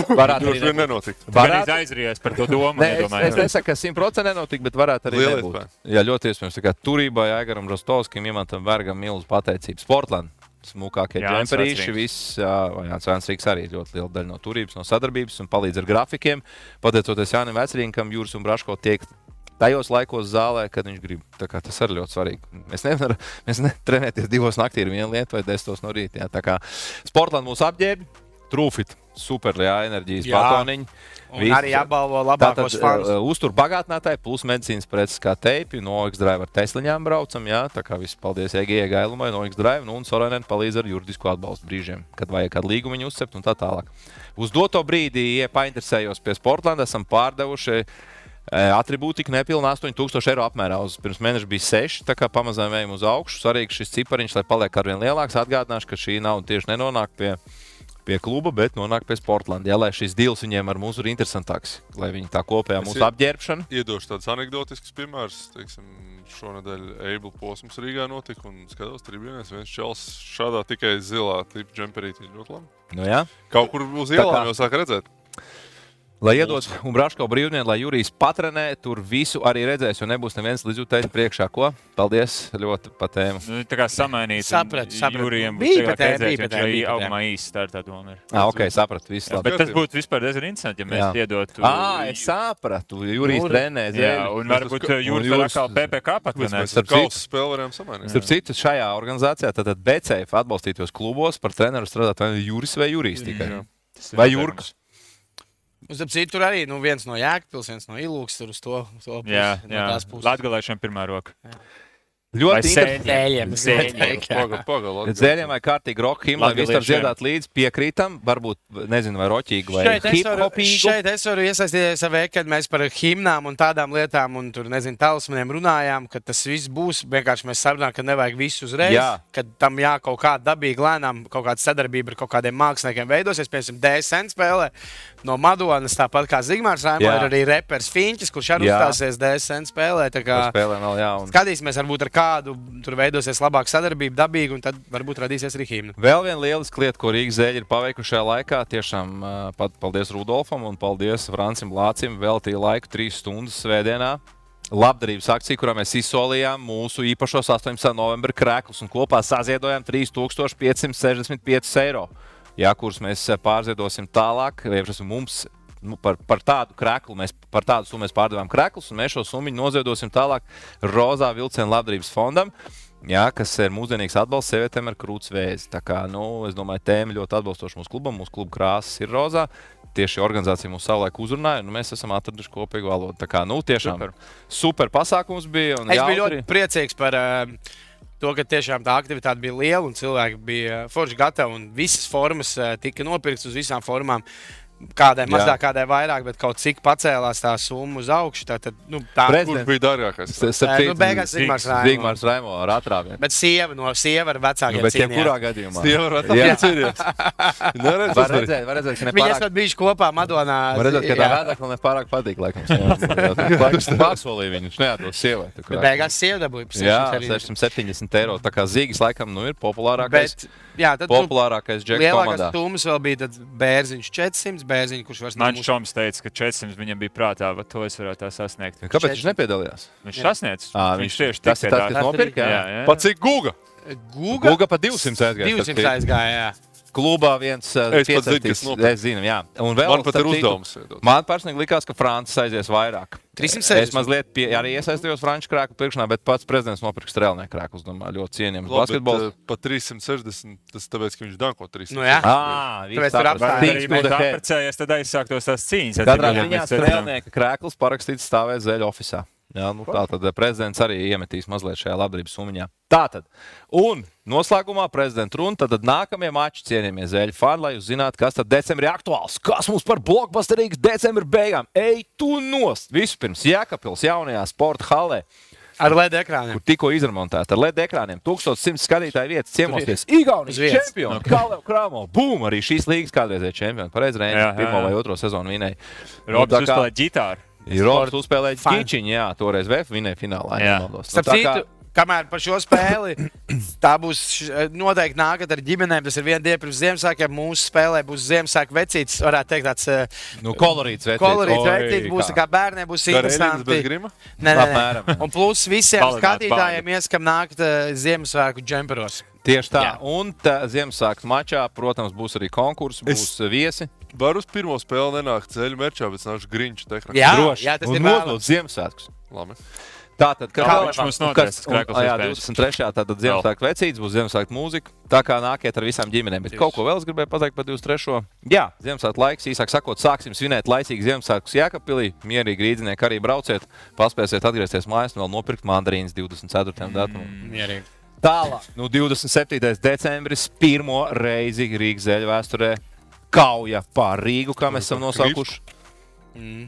Varētu arī nenotikt. Varētu aizrījies par to domu. Es nesaku, ka 100% nenotikt, bet varētu arī nebūt. Jā, ļoti iespējams. Tā kā Turībai, Aigaram Rostovskim, Imantam Bergam milzu pateicību. Sportland, smukākie džemperīši, viss. Jānis Vecrīgs arī ļoti liela daļa no Turības, no sadarbības un palīdz ar grafikiem. Pateicoties Jānim Vecrīgam, Juris un Braško tiek tajos laikos zālē, kad viņš grib. Tā kā tas arī ļoti svarīgi. Mēs nevaram trenēties 2 naktī ir viena lieta vai 10 no rīta. Tā kā Sportland mūs apģērbi, Trūfit, super enerģijas batoniņi. Un arī apbalvo labākos fanus. Uztur bagātinātāji, plus medicīnas preces kā teipi, no X-Drive ar Tesliņām braucam. Tā kā viss paldies EG Gailumai no X-Drive, un Sorainen palīdz ar juridisku atbalstu brīžiem, kad vajag kādu līgumu viņu uzcept un tā tālāk. Uz doto brīdī, ja painteresējos pie Sportlanda, esam pārdevuši atribūtika nepilna 8,000 eiro apmērā. Pirms mēneša bija 6, tā kā pamazām ejam uz augšu. Svarīgi šis cipariņš, lai paliek arvien lielāks. Atgādināšu, ka šī nauda tieši nenonāk pie kluba, bet nonāk pie Sportlanda. Jā, lai šis deals viņiem ar mums ir interesantāks, lai viņi tā kopējā mūsu apģērbšana. Iedošu tādus anekdotiskus piemērus. Šonedēļ Eibla posms Rīgā notika un skatos tribīnēs. Viens čels šādā tikai zilā tipa džemperītī ļoti labi. Nu jā. Kaut kur uz ielām jau sāk redzēt. Lai iedod un Braško brīvdienu, lai Jurijs patrenē, tur visu arī redzēs, jo nebūs neviens līdzjūtējs priekšā. Ko? Paldies ļoti pa tēmu. Tā kā samainīt. Sapratu. Jurijiem Bija būs redzēt, ka arī augumā īsti tā ir tā doma. Ok, sapratu, viss labi. Bet tas būtu vispār diezgan interesanti, ja mēs iedotu. Es sapratu, Jurijs trenē zēļu. Jā, un varbūt Jurijs var atkal PPK patrenēt. Mēs ar kausu spēli varējām samainīt. Starp citu, šajā organizācijā tātad BCF atbalstītos klubos par treneru strādāt vai Juris vai Jurijs tikai. Vai Jurks. Tur arī viens no Jēkabpils, viens no Ilūks tur uz to pusi. Jā, Latgalēšiem pirmā roka. Ļoti Zēļiem vai kārtīgi roka himna, lai viss var dziedāt līdz piekrītam, varbūt, nezinu, vai roķīgi vai hip-hopīgu. Šeit es varu iesaistīties savē, kad mēs par himnām un tādām lietām un tur, nezinu, talismaniem runājām, ka tas viss būs, vienkārši mēs sarunājam, ka nevajag visu uzreiz, kad tam kaut kā dabīgi lēnām kaut kāda sadarbība ar kaut kādiem māksliniekiem veidosies, piemēram, DSN spēlē, no Madonas, tāpat kā Zigmārs Raimo, ir arī reperis Finčis, kurš arī uzstāsies DSN spēlē. Spēlē vēl, jā. Skatīsimies, varbūt ar kādu tur veidosies labāka sadarbība, dabīga, un tad varbūt radīsies arī himna. Vēl viena lieliska lieta, ko Rīgas Zeļi ir paveikuši šajā laikā, tiešām paldies Rudolfam un paldies Francim Lācim, veltīja laiku 3 stundas svētdienā. Labdarības akcija, kurā mēs izsolījām mūsu īpašos 18. novembra krēklus un kopā saziedojām 3565 eiro. Jā, kurus mēs pārziedosim tālāk, mums par tādu krēklu, par tādu summu mēs pārdevām krēklus, un mēs šo summu noziedosim tālāk Rozā Vilciena labdarības fondam, jā, kas ir mūsdienīgs atbalsts sievietēm ar krūts vēzi. Tā kā, es domāju, tēma ļoti atbalstoša mūsu klubam, mūsu kluba krāsas ir rozā. Tieši organizācija mūs savulaik uzrunāja, un mēs esam atraduši kopīgu valodu. Tā kā, tiešām super pasākums bija. Es biju ļoti priecīgs par to, ka tiešām tā aktivitāte bija liela un cilvēki bija forši gatavi un visas formas tika nopirktas uz visām formām. Kādai mazāk, kādai vairāk, bet kaut cik pacēlās tā summa uz augšu. Kurš bija dārgākais? Beigās Zigmārs Raimo ar atrāvienu. Bet sieva ar vecākiem cīnījās. Bet kurā gadījumā? Sieva ar vecākiem cīnījās. Var redzēt, ka Viņi esat bijuši kopā Madonā. Var redzēt, ka tā vēdekla nepārāk patīk, laikam. Laikam pārsolīja viņu, neādos sievai. Bet beigās sieva dabūja. Jā, 670 eiro. Tā kā Zīgis laikam ir populārākais džeks komandā. Lielākās summas vēl bija Bērziņš 400. Bērziņu, kurš vairs Man Šoms teica, ka 400 viņam bija prātā, bet to es varētu tā sasniegt. Kāpēc viņš nepiedalījās? Viņš sasniedz. Viņš tieši tas, kas nopirka. Pa cik Guga? Guga pa 200 aizgāja. 200 aizgāja, jā. Klubā viens piecērtīs. Es zinu, jā. Un vēl, man pat ir uzdevums. Man personīgi likās, ka Francis aizies vairāk. 360. Es mazliet arī iesaistījos Franču krēklu pirkšanā, bet pats prezidents nopirka strēlnieku krēklus. Domāju, ļoti cienījams basketbols. Pa 360, tas tāpēc, ka viņš danko 360. Nu jā. Tāpēc tur apstājās, tad aizsāktos tās cīņas. Katrā ziņā strēlnieka krēklus parakstīts stāvēt Zeļu ofisā. Jā, tātad prezidents arī iemetīs mazliet šajā labdarības summiņā. Tātad, un noslēgumā prezidenta runa, tad nākamie mači, cienījamie Zeļu fani, lai jūs zinātu, kas tad decembrī aktuāls. Kas mums par blockbusterīgas decembra beigām? Ej tu nost! Vispirms Jēkabpils jaunajā sporta hallē. Ar LED ekrāniem. Kur tikko izremontēta ar LED ekrāniem. 1100 skatītāju vietas ciemosties. Igaunijas čempioni. Kalev Kramo. Bum! Arī šīs līgas kādreizēja čempioni. Pareiz Reinis 1. vai 2. sezonu vinēja. Robs uzspēlēja ģitāru. Robs uzspēlēja ģičiņu, jā. Toreiz VF vinēja finālā. Starp citu, kamēr par šo spēli, tā būs noteikti nākat ar ģimenēm. Tas ir viena diena pirms Ziemassvētkiem. Mūsu spēlē būs Ziemassvētku vecītis, varētu teikt tāds kolorīts vecītis. Kolorīts vecītis būs, tā kā bērniem būs interesanti. Nē. Un plus visiem skatītājiem ieskam nākt Ziemassvētku džemperos. Tieši tā. Jā. Un Ziemassvētku mačā, protams, būs arī konkursi, būs viesi. Var uz pirmo spēli nenākt Zeļu merčā, bet nākšu Grinču tehniku. Jā, tas ir nodot Ziemassvētkus. Labi. Tātad, kāds mums notiks? 23. tātad Ziemassvētku vecītis, būs Ziemassvētku mūzika. Tā kā nākiet ar visām ģimenēm. Bet kaut ko vēl es gribēju pateikt par 23. Jā, Ziemassvētku laiks, īsāk sakot, sāksim svinēt laicīgi Ziemassvētkus Jēkabpilī. Mierīgi rīdzinieki arī brauciet, paspēsiet atgriezties mājās un vēl nopirkt mandarīnas 24. datumā. Mierīgi. Tālāk, 27. decembris, pirmo reizi Rīgas Zeļu vēsturē kauja pār Rīgu, kā mēs esam nosaukuši.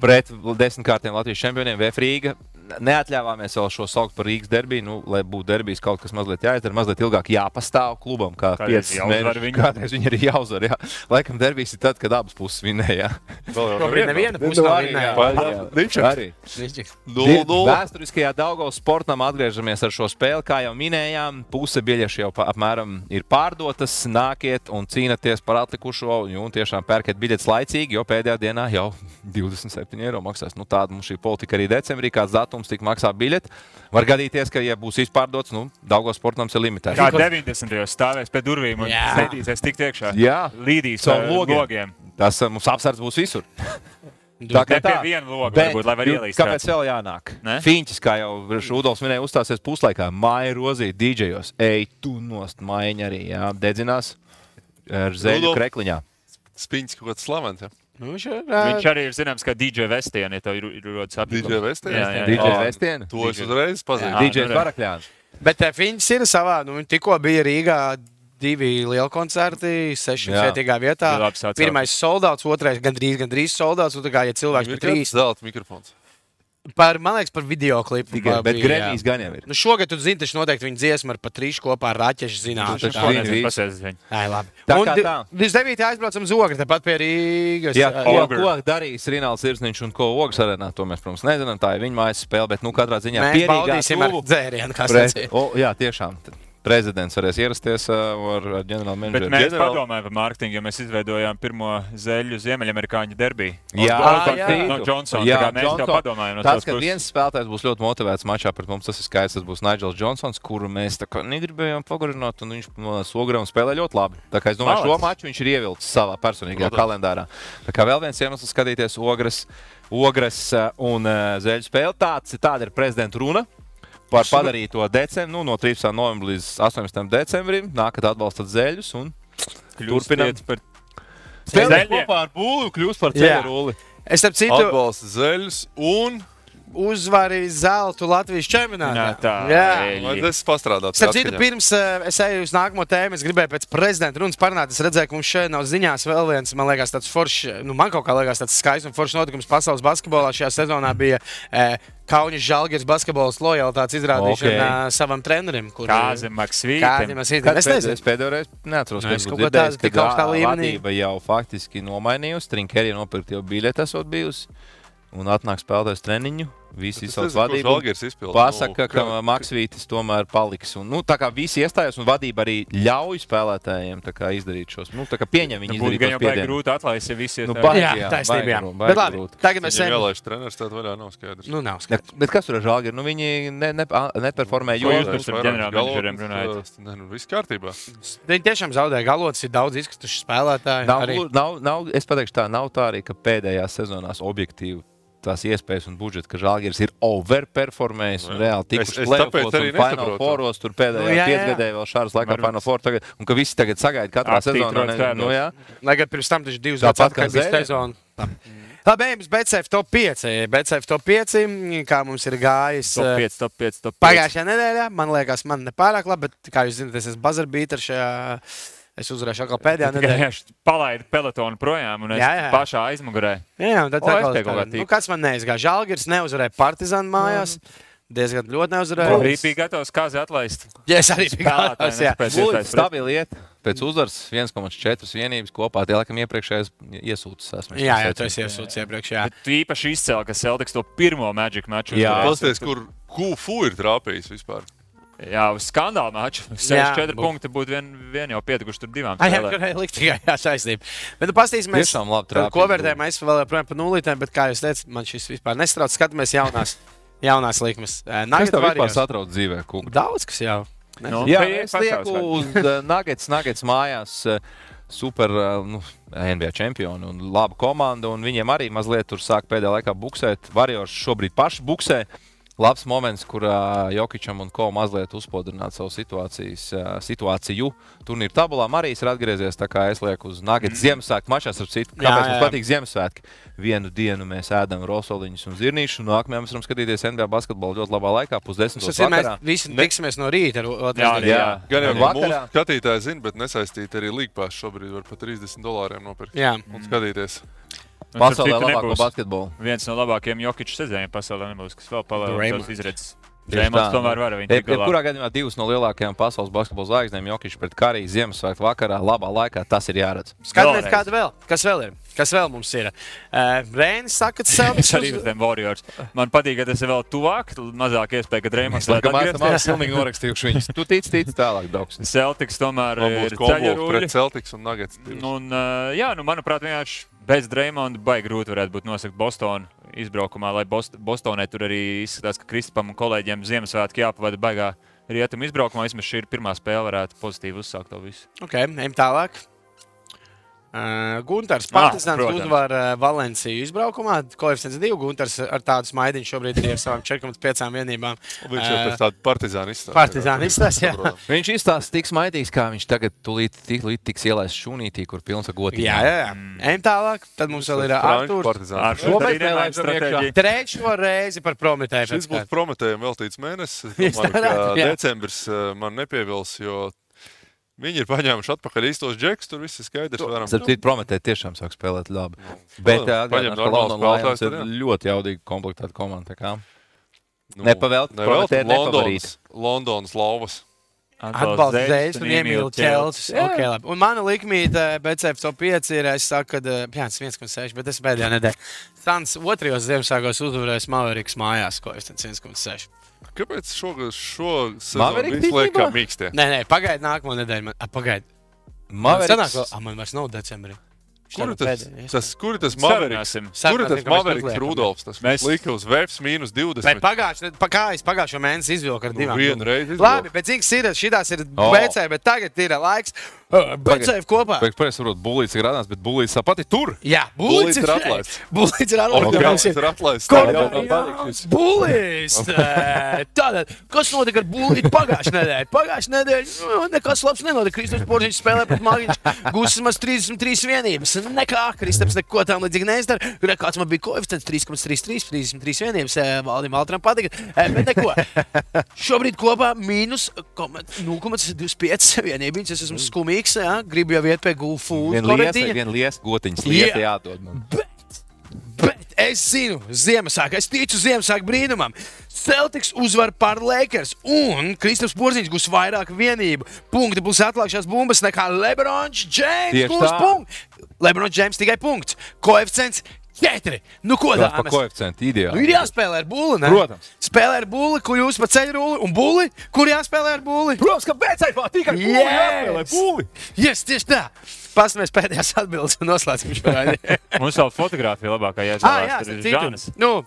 Pret 10-kārtiem Latvijas čempioniem VF Rīga. Neatļāvāmies vēl šo saukt par Rīgas derbiju, lai būtu derbijas kaut kas mazliet jāizdara, mazliet ilgāk jāpastāv klubam, kā 5 mēneši. Kādreiz viņi arī jāuzvar, jā. Laikam derbijas ir tad, kad abas puses vinēja, jā. Šobrīd neviena puse vinēja. Vēsturiskajā Daugavas sportam atgriežamies ar šo spēli, kā jau minējām, puse biļešu jau apmēram ir pārdotas, nākiet un cīnaties par atlikušo, un tiešām pērkiet biļetes laicīgi, jo pēdējā dienā jau 27 eiro maksās. Tāda mums šī politika arī decembrī, kāds datums tik maksā biļeti. Var gadīties, ka, ja būs izpārdots, Daugavas sportam ir limitēts. Kā 90. stāvēs pie durvīm un sēdīsies tik iekšā. Jā. Līdīs ar logiem. Tas mums apsardz būs visur. Tā kā tā. Viena loga varbūt, lai var ielīst. Kāpēc vēl jānāk? Fiņķis, kā jau Rudolfs minēja, uzstāsies puslaikā. Maija Rozī, DJos. Ej, tu nost, Maiņa arī, jā. Dedzinās ar Zeļu krekliņā. Spiņķis kaut kāds slavens, jā. Viņš arī ir zināms, kā DJ Vestieni, ja tev ir rodas apjūkums. DJ Vestieni? DJ Vestieni? To es uzreiz pazīstu. DJ Varakļāns. Bet Fiņķis ir savā, tikko bija Rīgā 2 lieli koncerti, 6 vietīgā vietā. Pirmais soldauts, otrais gandrīz soldauts, un tā kā, ja cilvēks ir 3. zelta mikrofons. Man liekas, par videoklipu. Bet Gramijs gan jau ir. Nu, šogad, tu zini, taču noteikti viņa dziesma ar Patrišu kopā ar Raķešu zināšanu. Labi. Un 29. aizbraucam uz Ogri, tepat pie Rīgas. Jā, ko darīs Rinalds Irsniņš un ko Ogres arēnā, to mēs, protams, nezinām. Tā ir viņa mājas spēle, bet, katrā ziņā mēs baudīsim ar dzērienu, kā sacīja. Jā, tiešām. Prezidents varēs ierasties ar ģenerālu menedžeru. Bet mēs padomājam par mārketingu, jo mēs izveidojām pirmo zeļu ziemeļamerikāņu derbiju. Jā, no Johnsona. Jā, mēs jau padomājam. Tas, ka viens spēlētājs būs ļoti motivēts mačā pret mums, tas ir skaidrs. Tas būs Nigels Johnsons, kuru mēs tā kā negribējām pagarināt, un viņš no Ogres spēlē ļoti labi. Tā kā es domāju, šo maču viņš ir ievilcis savā personīgajā kalendārā. Tā kā vēl viens iemesls skatīties Ogres un zeļu spēli. Tāda ir prezidenta runa. Par padarīto decembri, no 13. novembra līdz 18. decembrim, nākat atbalstat zeļus un turpināt par spēlēt kopā ar būlu, kļūst par ceļu rulli. Es starp citu atbalsta zeļus un uzvarīja zeltu Latvijas čempionātā. Es pastrādāju. Starp citu, pirms es eju uz nākamo tēmu, es gribēju pēc prezidenta runas parunāt. Es redzēju, ka mums šeit nav ziņās vēl viens, man liekas, tāds foršs, man kaut kā liekas tāds skaists un foršs notikums pasaules basketbolā. Šajā sezonā bija Kaunis Žalgiris basketbols lojalitātes izrādīšana savam trenerim. Kāzim Maksvītam. Es pēdējo reizi neatceros, ka vadība jau faktiski nomainījusi. Trinkerija nopirkt jau biļeti esot bijusi. Un atnāk spēlētājs treniņu, visi izsauc vadību. Pasaka, ka Maksvītis tomēr paliks. Un, tā kā visi iestājās un vadība arī ļauj spēlētājiem izdarīt šos. Tā kā pieņem viņi izdarīt tos piedienus. Būtu grūti atlaist, ja visi iestājās. Jā, taisnība. Bet labi, tagad mēs ejam. Ielaiž treneris, tad vaļā nav skaidrs. Nav skaidrs. Bet kas tur ar Žalgiri? Viņi neperformē, jo jūs ar ģenerālmenedžeriem runājat. Viss kārtībā. Viņi tiešām zaudēja galots, ir daudz izkrituši spēlētāji. Es pateikšu tā, nav tā arī, ka pēdējās sezonās objektīvi tās iespējas un budžets, ka Žalgiris ir overperformējis un reāli tikuši play-offos un Final Fouros, tur pēdējā piecgadē vēl šādas laikā Final Four tagad, un ka visi tagad sagaida katrā sezonā. Lai gan pirms tam taču 2 gadus atpakaļ bija sezona. Labi, ejam uz BCF top 5. BCF top 5, kā mums ir gājis top 5. Pagājušajā nedēļā, man liekas, man nepārāk labi, bet, kā jūs zināt, es esmu buzzer beater šajā. Es uzvarēšu atkal pēdējā nedēļā. Es palaidu pelotonu projām un es pašā aizmugurē. Jā, un tad kāds man neizgāja. Žalgiris neuzvarēja Partizānu mājās. Diezgan ļoti neuzvarēja. Arī bija gatavs kāzi atlaist. Jā, es arī biju gatavs, jā. Stabili iet. Pēc uzvaras 1,4 vienības kopā. Tie, laikam, iepriekšējais iesūtas esmu. Jā, tu esi iesūtas iepriekš, jā. Bet tu īpaši izcēl, ka Celtics to pirmo Magic maču. Jā. Pasties, kur Kufu ir trāpījis vispār. Jā, uz skandāla maču. 64 punkti būtu vien jau pietukuši tur divām spēlēm. Jā, likt tikai saistība. Bet paskatīsimies, ko vērtējam. Es vēl joprojām par nulītēm, bet, kā jūs teicat, man šis vispār nestrauc. Skatāmies jaunās likmes. Kas tev vispār satrauc dzīvē, Kungs? Daudz, kas jau. Jā, es lieku uz Nuggets mājās. Super NBA čempioni un laba komanda. Un viņiem arī mazliet tur sāk pēdējā laikā buksēt. Warriors šobrīd paši buksē. Labs moments, kur Jokičam un Ko mazliet uzspodrināt savu situāciju. Turnīra tabulā Marijs ir atgriezies, tā kā es lieku uz Nuggets Ziemassvētku mačās ar citu. Kāpēc mums patīk Ziemassvētki? Vienu dienu mēs ēdam rosoliņus un zirnīšus, un nākamajā mēs varam skatīties NBA basketbolu ļoti labā laikā, 9:30 vakarā. Mēs visi tiksimies no rīta. Jā. Gan jau mūsu skatītāji zina, bet nesaistīt arī līgpās šobrīd var par $30 nopirkt un skatīties. Pasaulē labāko basketbolu. Viens no labākajiem Jokiču sezoniem pasaulē nebūs, kas vēl palielinās izredzes. Drēmons tomēr var viņu tikt galā. Kurā gadījumā 2 no lielākajām pasaules basketbola zvaigznēm Jokičs pret Kariju Ziemassvētku vakarā, labā laikā, tas ir jāredz. Skatāmies, kāda vēl. Kas vēl ir? Kas vēl mums ir? Rēnis saka, ka Celtics arī uz tiem Warriors. Man patīk, ka tas ir vēl tuvāk, mazāk iespēja, ka Drēmons vēl atgriezties. Mēs pilnīgi norakstījuši viņus. Tu tici tālāk, Doks. Celtics tomēr ir ceļaruļi. Pret Celtics un Nuggets. Manuprāt, vienkārši bez Drēmonda baigi grūti varētu būt nosakt Bostonu izbraukumā, lai Bostonē tur arī izskatās, ka Kristapam un kolēģiem Ziemassvētki jāpavada baigā rietumu izbraukumā. Vismaz šī ir pirmā spēle, varētu pozitīvi uzsākt to visu. Ok, ejam tālāk. Guntars Partizāns uzvar Valenciju izbraukumā. Koeficients 2. Guntars ar tādu smaidiņu šobrīd ir ar savām 4,5 vienībām. Viņš jau pēc tādu Partizānu izstāsta. Partizānu izstāsta, jā. Viņš izstāsta tik smaidīgs, kā viņš tagad tūlīt tiks ielaists šūnītī, kur pilns ar gotīm. Jā. Ejam tālāk. Tad mums vēl ir Artūrs. Ar šo stratēģiju. Trešo reizi par Prometēju. Šis būs Prometējiem veltīts mēnesis. Decembris man nepievils, jo Viņi ir paņēmuši atpakaļ īstos džekus, tur viss ir skaidrs. Starp Prometē tiešām sāk spēlēt labi. Bet atgādināt, ka London Lions ir ļoti jaudīgi komplektēta komanda. Nepavēlt, Prometē nepavarīt. Londonas lauvas. Atbalsta Zēļus un iemīl Čelsis. Okay, labi. Un mana likmīte BCF top 5 ir, es saku, ka 1,6, bet es pēdējā nedēļā. Sans 2. Ziemassvētkos uzvarēs Mavericks mājās, ko es 1,6. Kāpēc šo sezonu visu liek kā mīkstie? Nē, pagaidi nākamo nedēļu. Pagaidi. Man vairs nav decembrī. Kur ir tas Mavericks? Kur ir tas Mavericks Rudolfs? Tas lika uz Vēfs -20. Bet pagājušo mēnesi izvilka ar 2. Vienu reizi izvilka. Labi, bet zins ir, šitās ir BC, bet tagad ir laiks BCF kopā. Pēc varbūt Bulīts ir radās, bet Bulīts tāpat ir tur. Jā, Bulīts ir atlaists. Bulīts ir atlaists. Bulīts! Tātad, kas notika ar Bulītu pagājušajā nedēļā? Pagājušajā nedēļā nekas labs nenotika. Kristaps Porziņš spēlē pret Magiņš. Gūsis maz 33 vienības. Nekā, Kristaps neko tam līdzīgi neizdara. Kāds man bija koeficients 3,33, 33 vienības. Valdim Altram patika. Bet neko. Šobrīd kopā mīnus 0,25 vienības. Es esmu skumīgs. Gribu jau iet pie Gulfood. Vien lies gotiņas lieta jādod man. Bet es zinu, Ziemassvētku, es ticu Ziemassvētku brīnumam. Celtics uzvar par Lakers un Kristaps Porziņš gūs vairāk vienību. Punkti būs atlākšās bumbas nekā LeBrons James gūs punktu. LeBrons James tikai punkts. Koeficients 4. Nu, ko tā? Par koeficientu ideāli. Ir jāspēlē ar Bulli, ne? Protams. Spēlē ar Bulli, kur jūs pa ceļu rulli, un Bulli, kur jāspēlē ar Bulli? Protams, ka BCF tikai Bulli jāspēlē Bulli. Yes, tieši tā. Pastāmies pēdējās atbildes un noslēdzam šo raidījumu. Mums vēl fotogrāfija labākā jāizvēlās. Tur ir Žanis.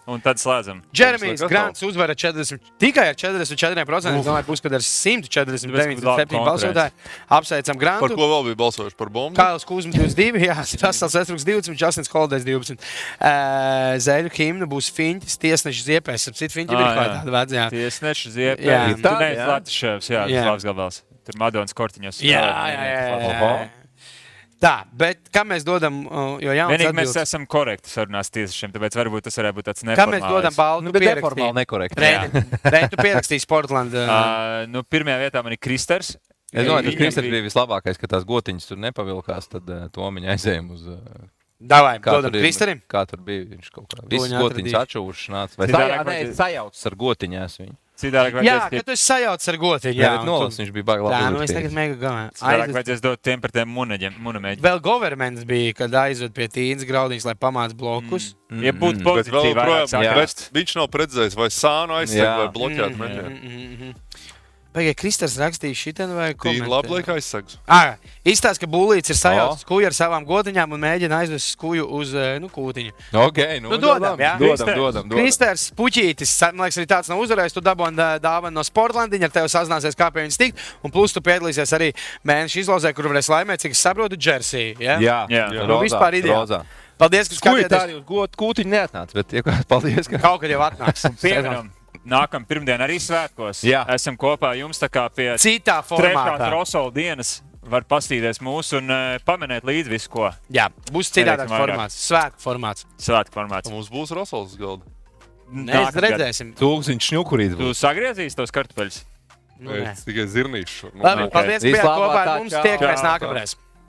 Un tad slēdzam. Džeremijs Grants uzvara tikai ar 44%. Es domāju, būs, kad ar 149,7 balsotāji. Apsveicam Grantu. Par ko vēl bija balsojuši? Par bombu? Kāls Kuzma 22, jā, Rastals Estruks 20, Justins Holders 12. Zēļu himna būs Fiņķis, Tiesneša Ziepēs. Ap citu Fiņķi bija kaut tāda vecajā. Tiesneša Ziepēs. Tu neesi Latviševs, jā, tas labs gabals. Tur Madonas kortiņos. Jā. Tā, bet kā mēs dodam, jo jauns vienīgi atbildes. mēs esam korekti sarunās tiesnešiem, tāpēc varbūt tas varētu būt tāds neformāls. Kā mēs dodam baltu neformāli nekorekti. Reitu pierakstīsi Portland. Pirmajā vietā man ir Kristers. Es domāju, ka Kristers bija vislabākais, ka tās gotiņas tur nepavilkās, tad Tomiņa aizējām uz... Davai, dodam Kristerim. Kā tur bija, viņš kaut kā visas gotiņas atšuvuši nāca. Vai sajaucas ar gotiņās viņu. Jā, ka tu esi sajaucis ar gotiņu. Jā, viņš bija baigi labi. Jā, nu es tagad mega galvā. Citādāk vajadzēs dot tiem par tiem munamēģiem. Vēl governments bija, kad aizved pie Tīnas Graudiņas, lai pamāc blokus. Ja būtu pozitīvi vairāk. Viņš nav redzējis, vai sānu aizseg vai bloķēt meņiem. Pagaidā, Kristers rakstīja šitien vai komentē? Tīri labi liek aizsegs. Izstāst, ka Bulīts ir sajaucis kuju ar savām gotiņām un mēģina aizvest kuju uz kūtiņu. Ok, dodam, jā? Dodam. Kristers Puķītis, man liekas, arī tāds nav uzvarējis, tu dabūni dāvanu no Sportlandiņa, ar tevi sazināsies, kā pie viņas tikt, un plus tu piedalīsies arī mēneša izlozē, kur varēs laimēt, cik es saprotu, Jersey, jā? Jā. Nu, vispār ideāli. Paldies, ka skatieties. Tā arī uz kūtiņu neatnāca, bet paldies, ka... Kaut kad jau atnāks. Nākam pirmdien arī svētkos. Jā. Esam kopā jums tā kā pie citā formātā. 3. Rosola dienas. Var pastīties mūsu un pamanēt līdzi visu, ko. Jā, būs citādāks formāts. Svētku formāts. Mums būs Rosols galda. Mēs redzēsim. Tūkstoši šņukurīt. Tu sagriezīs tos kartupeļus? Es tikai zirnīšu. Labi, paldies, ka bijāt kopā ar mums. Tiekamies nākamreiz.